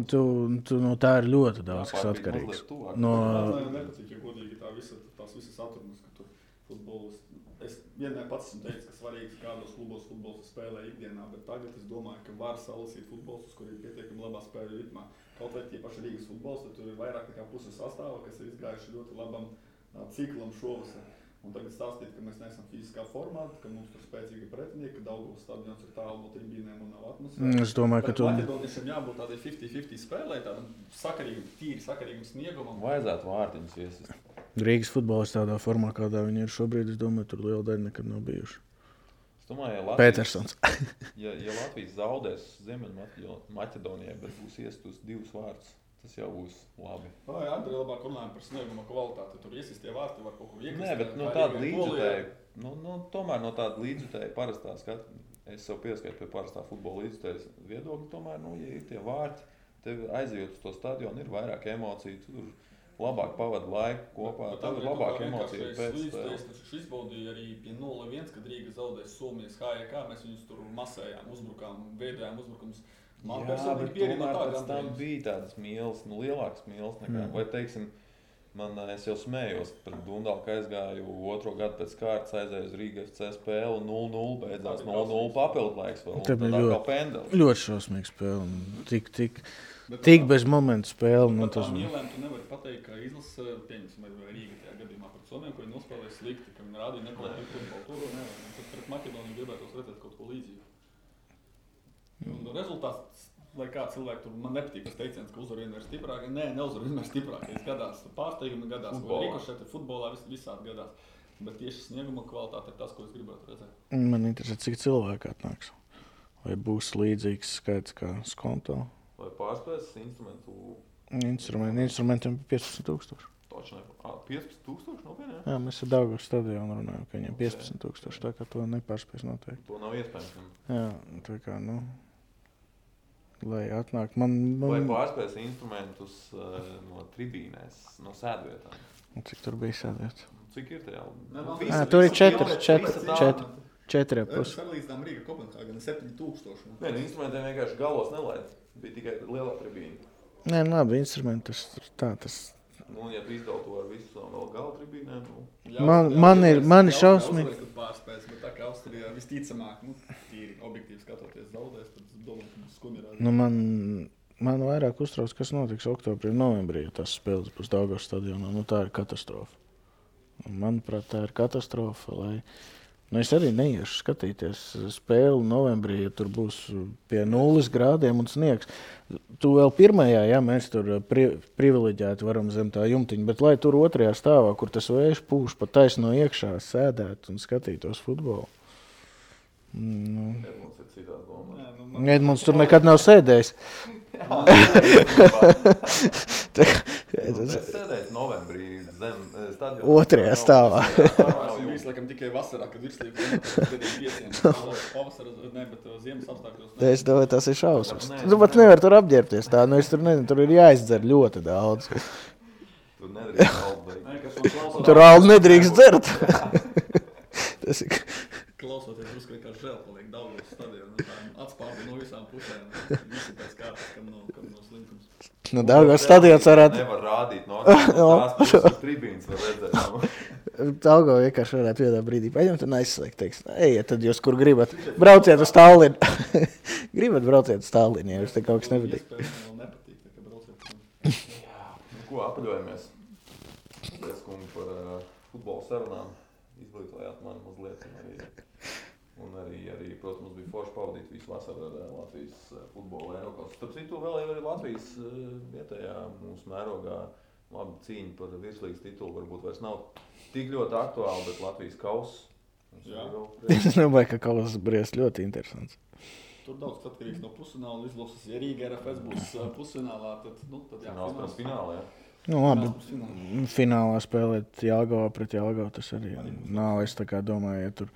No tā ir ļoti daudz, kas atkarīgs. Man nepatīk, ja godīgi tās visas atrunas, ka tu futbolus. Es vienmēr pats esmu teicis, ka svarīgs kādos klubos futbols spēlē ikdienā, bet tagad es domāju, ka var salasīt futbolus, kur ir pietiekami labā spēļu ritmā. Kaut vai tie paši Rīgas futbols, tad tur ir vairāk nekā puses sastāva, kas ir izgājuši ļoti labam ciklam šovasar. Un tagad stāstīt, ka mēs neesam fiziskā formā, ka mums tur spēcīgi pretinieki, ka Daugavas stadions ir tālu no tribīnēm un nav atmosfēra. Es domāju, ka Maķedoniešiem jābūt tādai 50-50 spēlē, tādam sakarīgam sniegumam. Vajadzētu vārtiņus iesist. Rīgas futbols tādā formā, kādā viņi ir šobrīd, es domāju, tur liela daļa nekad nav bijuši. Es domāju, Petersons. ja Latvijas zaudēs Ziemeļmaķedonijai, bet būs iestus 2 vārtus, tas jau būs labi. Vai Andrei labāk runājam par snieguma kvalitāti, tur iesistie vārti var kaut ko iekrist. Nē, bet no tāda līdzjutēja, tomēr no tāda līdzjutēja parastā skata, es sev pieskaitu pie parastā futbola līdzjutējas viedokļa, tomēr, ja ir tie vārti, tev aizejot uz to stadionu, ir vairāk emociju, tur labāk pavada laiku kopā, tad ir labāk emocija pēc spēles. Taču izbaudīja arī pie 0-1, kad Rīga zaudēs Somijas HJK, mēs viņus tur masējām, uzbrukām, veidojām uzbrukumus. Jā, bet tomēr pēc tam bija tādas mīles, lielākas mīles nekā, vai teiksim, es jau smējos pret Dundalu, ka aizgāju 2. gadu pēc kārtas, aizēju uz Rīga FC spēli, 0-0, beidzās 0-0 papildlaiks vēl, un tad atkal pendeli. Ļoti šausmīga spēle, tik bez momentu spēle. Bet tām mīlēm tu nevari pateikt, ka izlasa, pieņemsim, vai Rīga tajā gadījumā pret Somiem, ko viņi nospēlēja slikti, ka viņi rādīja nekvalitīvu futbolu. Tur nevar, tad pret Maķedoniju gribētos redzēt kaut ko līdzīgu. Un rezultāts, lai kā cilvēki tur, man nepatīk tas teiciens, ka uzvar vienmēr stiprāk. Nē, neuzvar vienmēr stiprākais. Gadās pārsteigumi, gadās rikošeti, futbolā visādi gadās. Bet tieši snieguma kvalitāte ir tas, ko es gribētu redzēt. Man interesē, cik cilvēki atnāks. Vai būs līdzīgs skaits kā Skonto? Vai pārspēs instrumentu? Instrumentiem 15,000. Taču ne, 15,000 nopietni, jā? Jā, mēs ar Daugavas stadionu runājam, ka viņiem 15,000, tā kā to nepārspēs noteikti. To nav iespējams. Jā, tā kā, lai atnāk. Vai pārspēs instrumentus no tribīnēs, no sēdvietām? Cik tur bija sēdvietas? Cik ir tajā? Tur ir 4,5. Sarlīdzinām Rīga Kopenhāgena 7,000. Nē, instrumentiem vienkārši galos nelaid. Bija tikai lielā tribīna. Nē, labi, instrumenti tas. Ja tu izdala to ar visu vēl gala tribīnēm, Man ir šausmīgi. Pārspēs, bet tā kā Austrijā visticamāk, tīri objektīvi skatoties zaudēs, tad es domāju, ka būs skumji. Man vairāk uztrauc, kas notiks oktobrī un novembrī, ja tas spēles būs Daugavas stadionā. Tā ir katastrofa. Manuprāt, tā ir katastrofa, es arī neiešu skatīties spēli novembrī, ja tur būs pie 0 grādiem un sniegs. Tu vēl pirmajā, mēs tur privileģēti varam zem tā jumtiņa, bet lai tur 2. stāvā, kur tas vējš pūš pa taisno iekšā, sēdēt un skatītos futbolu. Edmunds ir citā domā. Edmunds tur nekad nav sēdējis. Es sēdēju novembrī zem stadiona 2. stāvā. Viņš laikam tikai vasarā, kad virslība pavasara, bet ziemas apstākļos. Es domāju, tas ir šausmas. Tu pat nevar tur apģērbties tā, es tur nezinu, tur ir jāizdzer ļoti daudz. Tur nedrīkst aldi. Tur aldi nedrīkst dzert. Tas ir... Klausoties, drusku kā žēl paliek Daugavas stadionu, atspārdi no visām pusēm, visi pēc kārtas, kam no slinkums. Daugavas stadions varētu... Nevar rādīt no tās puses tribīnas var redzēt. Algo vienkārši varētu vienā brīdī paņemt un aizslēgt. Teiks, ejiet, tad jūs, kur gribat, brauciet uz Tallinu. Gribat brauciet uz Tallinu, ja jums te kaut kas nepatīk. Iespējams, man nepatīk, tā kā brauciet. Ko apaļojamies? Paldies, kungi, par futbola sarunām. Izglītojāt mani mazliet. Un arī, protams, bija forši pavadīt visu vasaru ar Latvijas futbola Eiropas. Starp citu, vēl jau arī Latvijas vietējā mūsu mērogā labi cīņa par virslīgas titulu. Varbūt vairs nav tik ļoti aktuāli, bet Latvijas kauss. Es domāju, ka kauss briest ļoti interesants. Tur daudz atkarīgs no pusfināla izlases. Ja Rīga RFS būs pusfinālā, tad jāfināls finālā, jā. Nu, labi, finālā spēlēt Jelgavā pret Jelgavu, tas arī nav, es tā kā domāju, ja tur...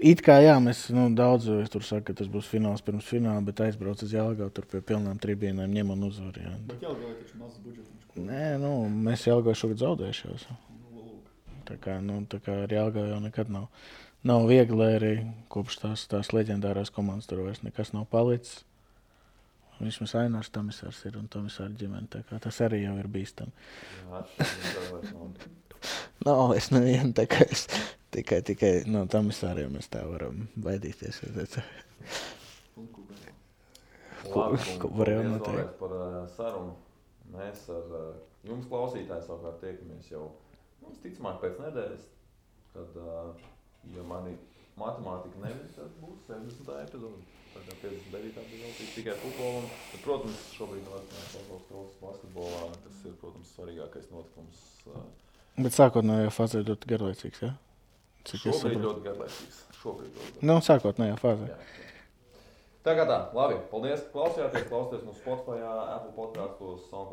It kā jā, mēs daudz tur saka, ka tas būs fināls pirms fināla, bet aizbrauc uz Jelgavu, tur pie pilnām tribīnēm ņem un uzvar, jā. Bet Jelgavai taču mazs budžets. Nē, mēs Jelgavu šogad zaudējušies. Tā kā ar Jelgavu jau nekad nav viegli, arī kopš tās leģendārās komandas tur vairs nekas nav palicis. Vismaz Ainārs Tomisārs ir un Tomisāra ģimene, tā kā tas arī jau ir bīstami. Nav es nevienu, tā kā es tikai no Tomisāriem mēs tā varam baidīties. Ko varējām noteikt? Par sarunu. Mēs ar jums klausītāji savukārt tiekamies jau, ticamāk pēc nedēļas, kad, ja mani matemātika nevis, tad būs 70. epizode. Tagad 59. bija tikai futbolu. Bet, protams, šobrīd vēl basketbolā, tas ir, protams, svarīgākais notikums. Bet sākotnējā fāzē ļoti garlaicīgs, jā? Šobrīd ļoti garlaicīgs. Sākotnējā fāzē. Tā kā tā, labi. Paldies, ka klausījāties. Klausieties mūsu Spotify, Apple podcasts, SoundCloud.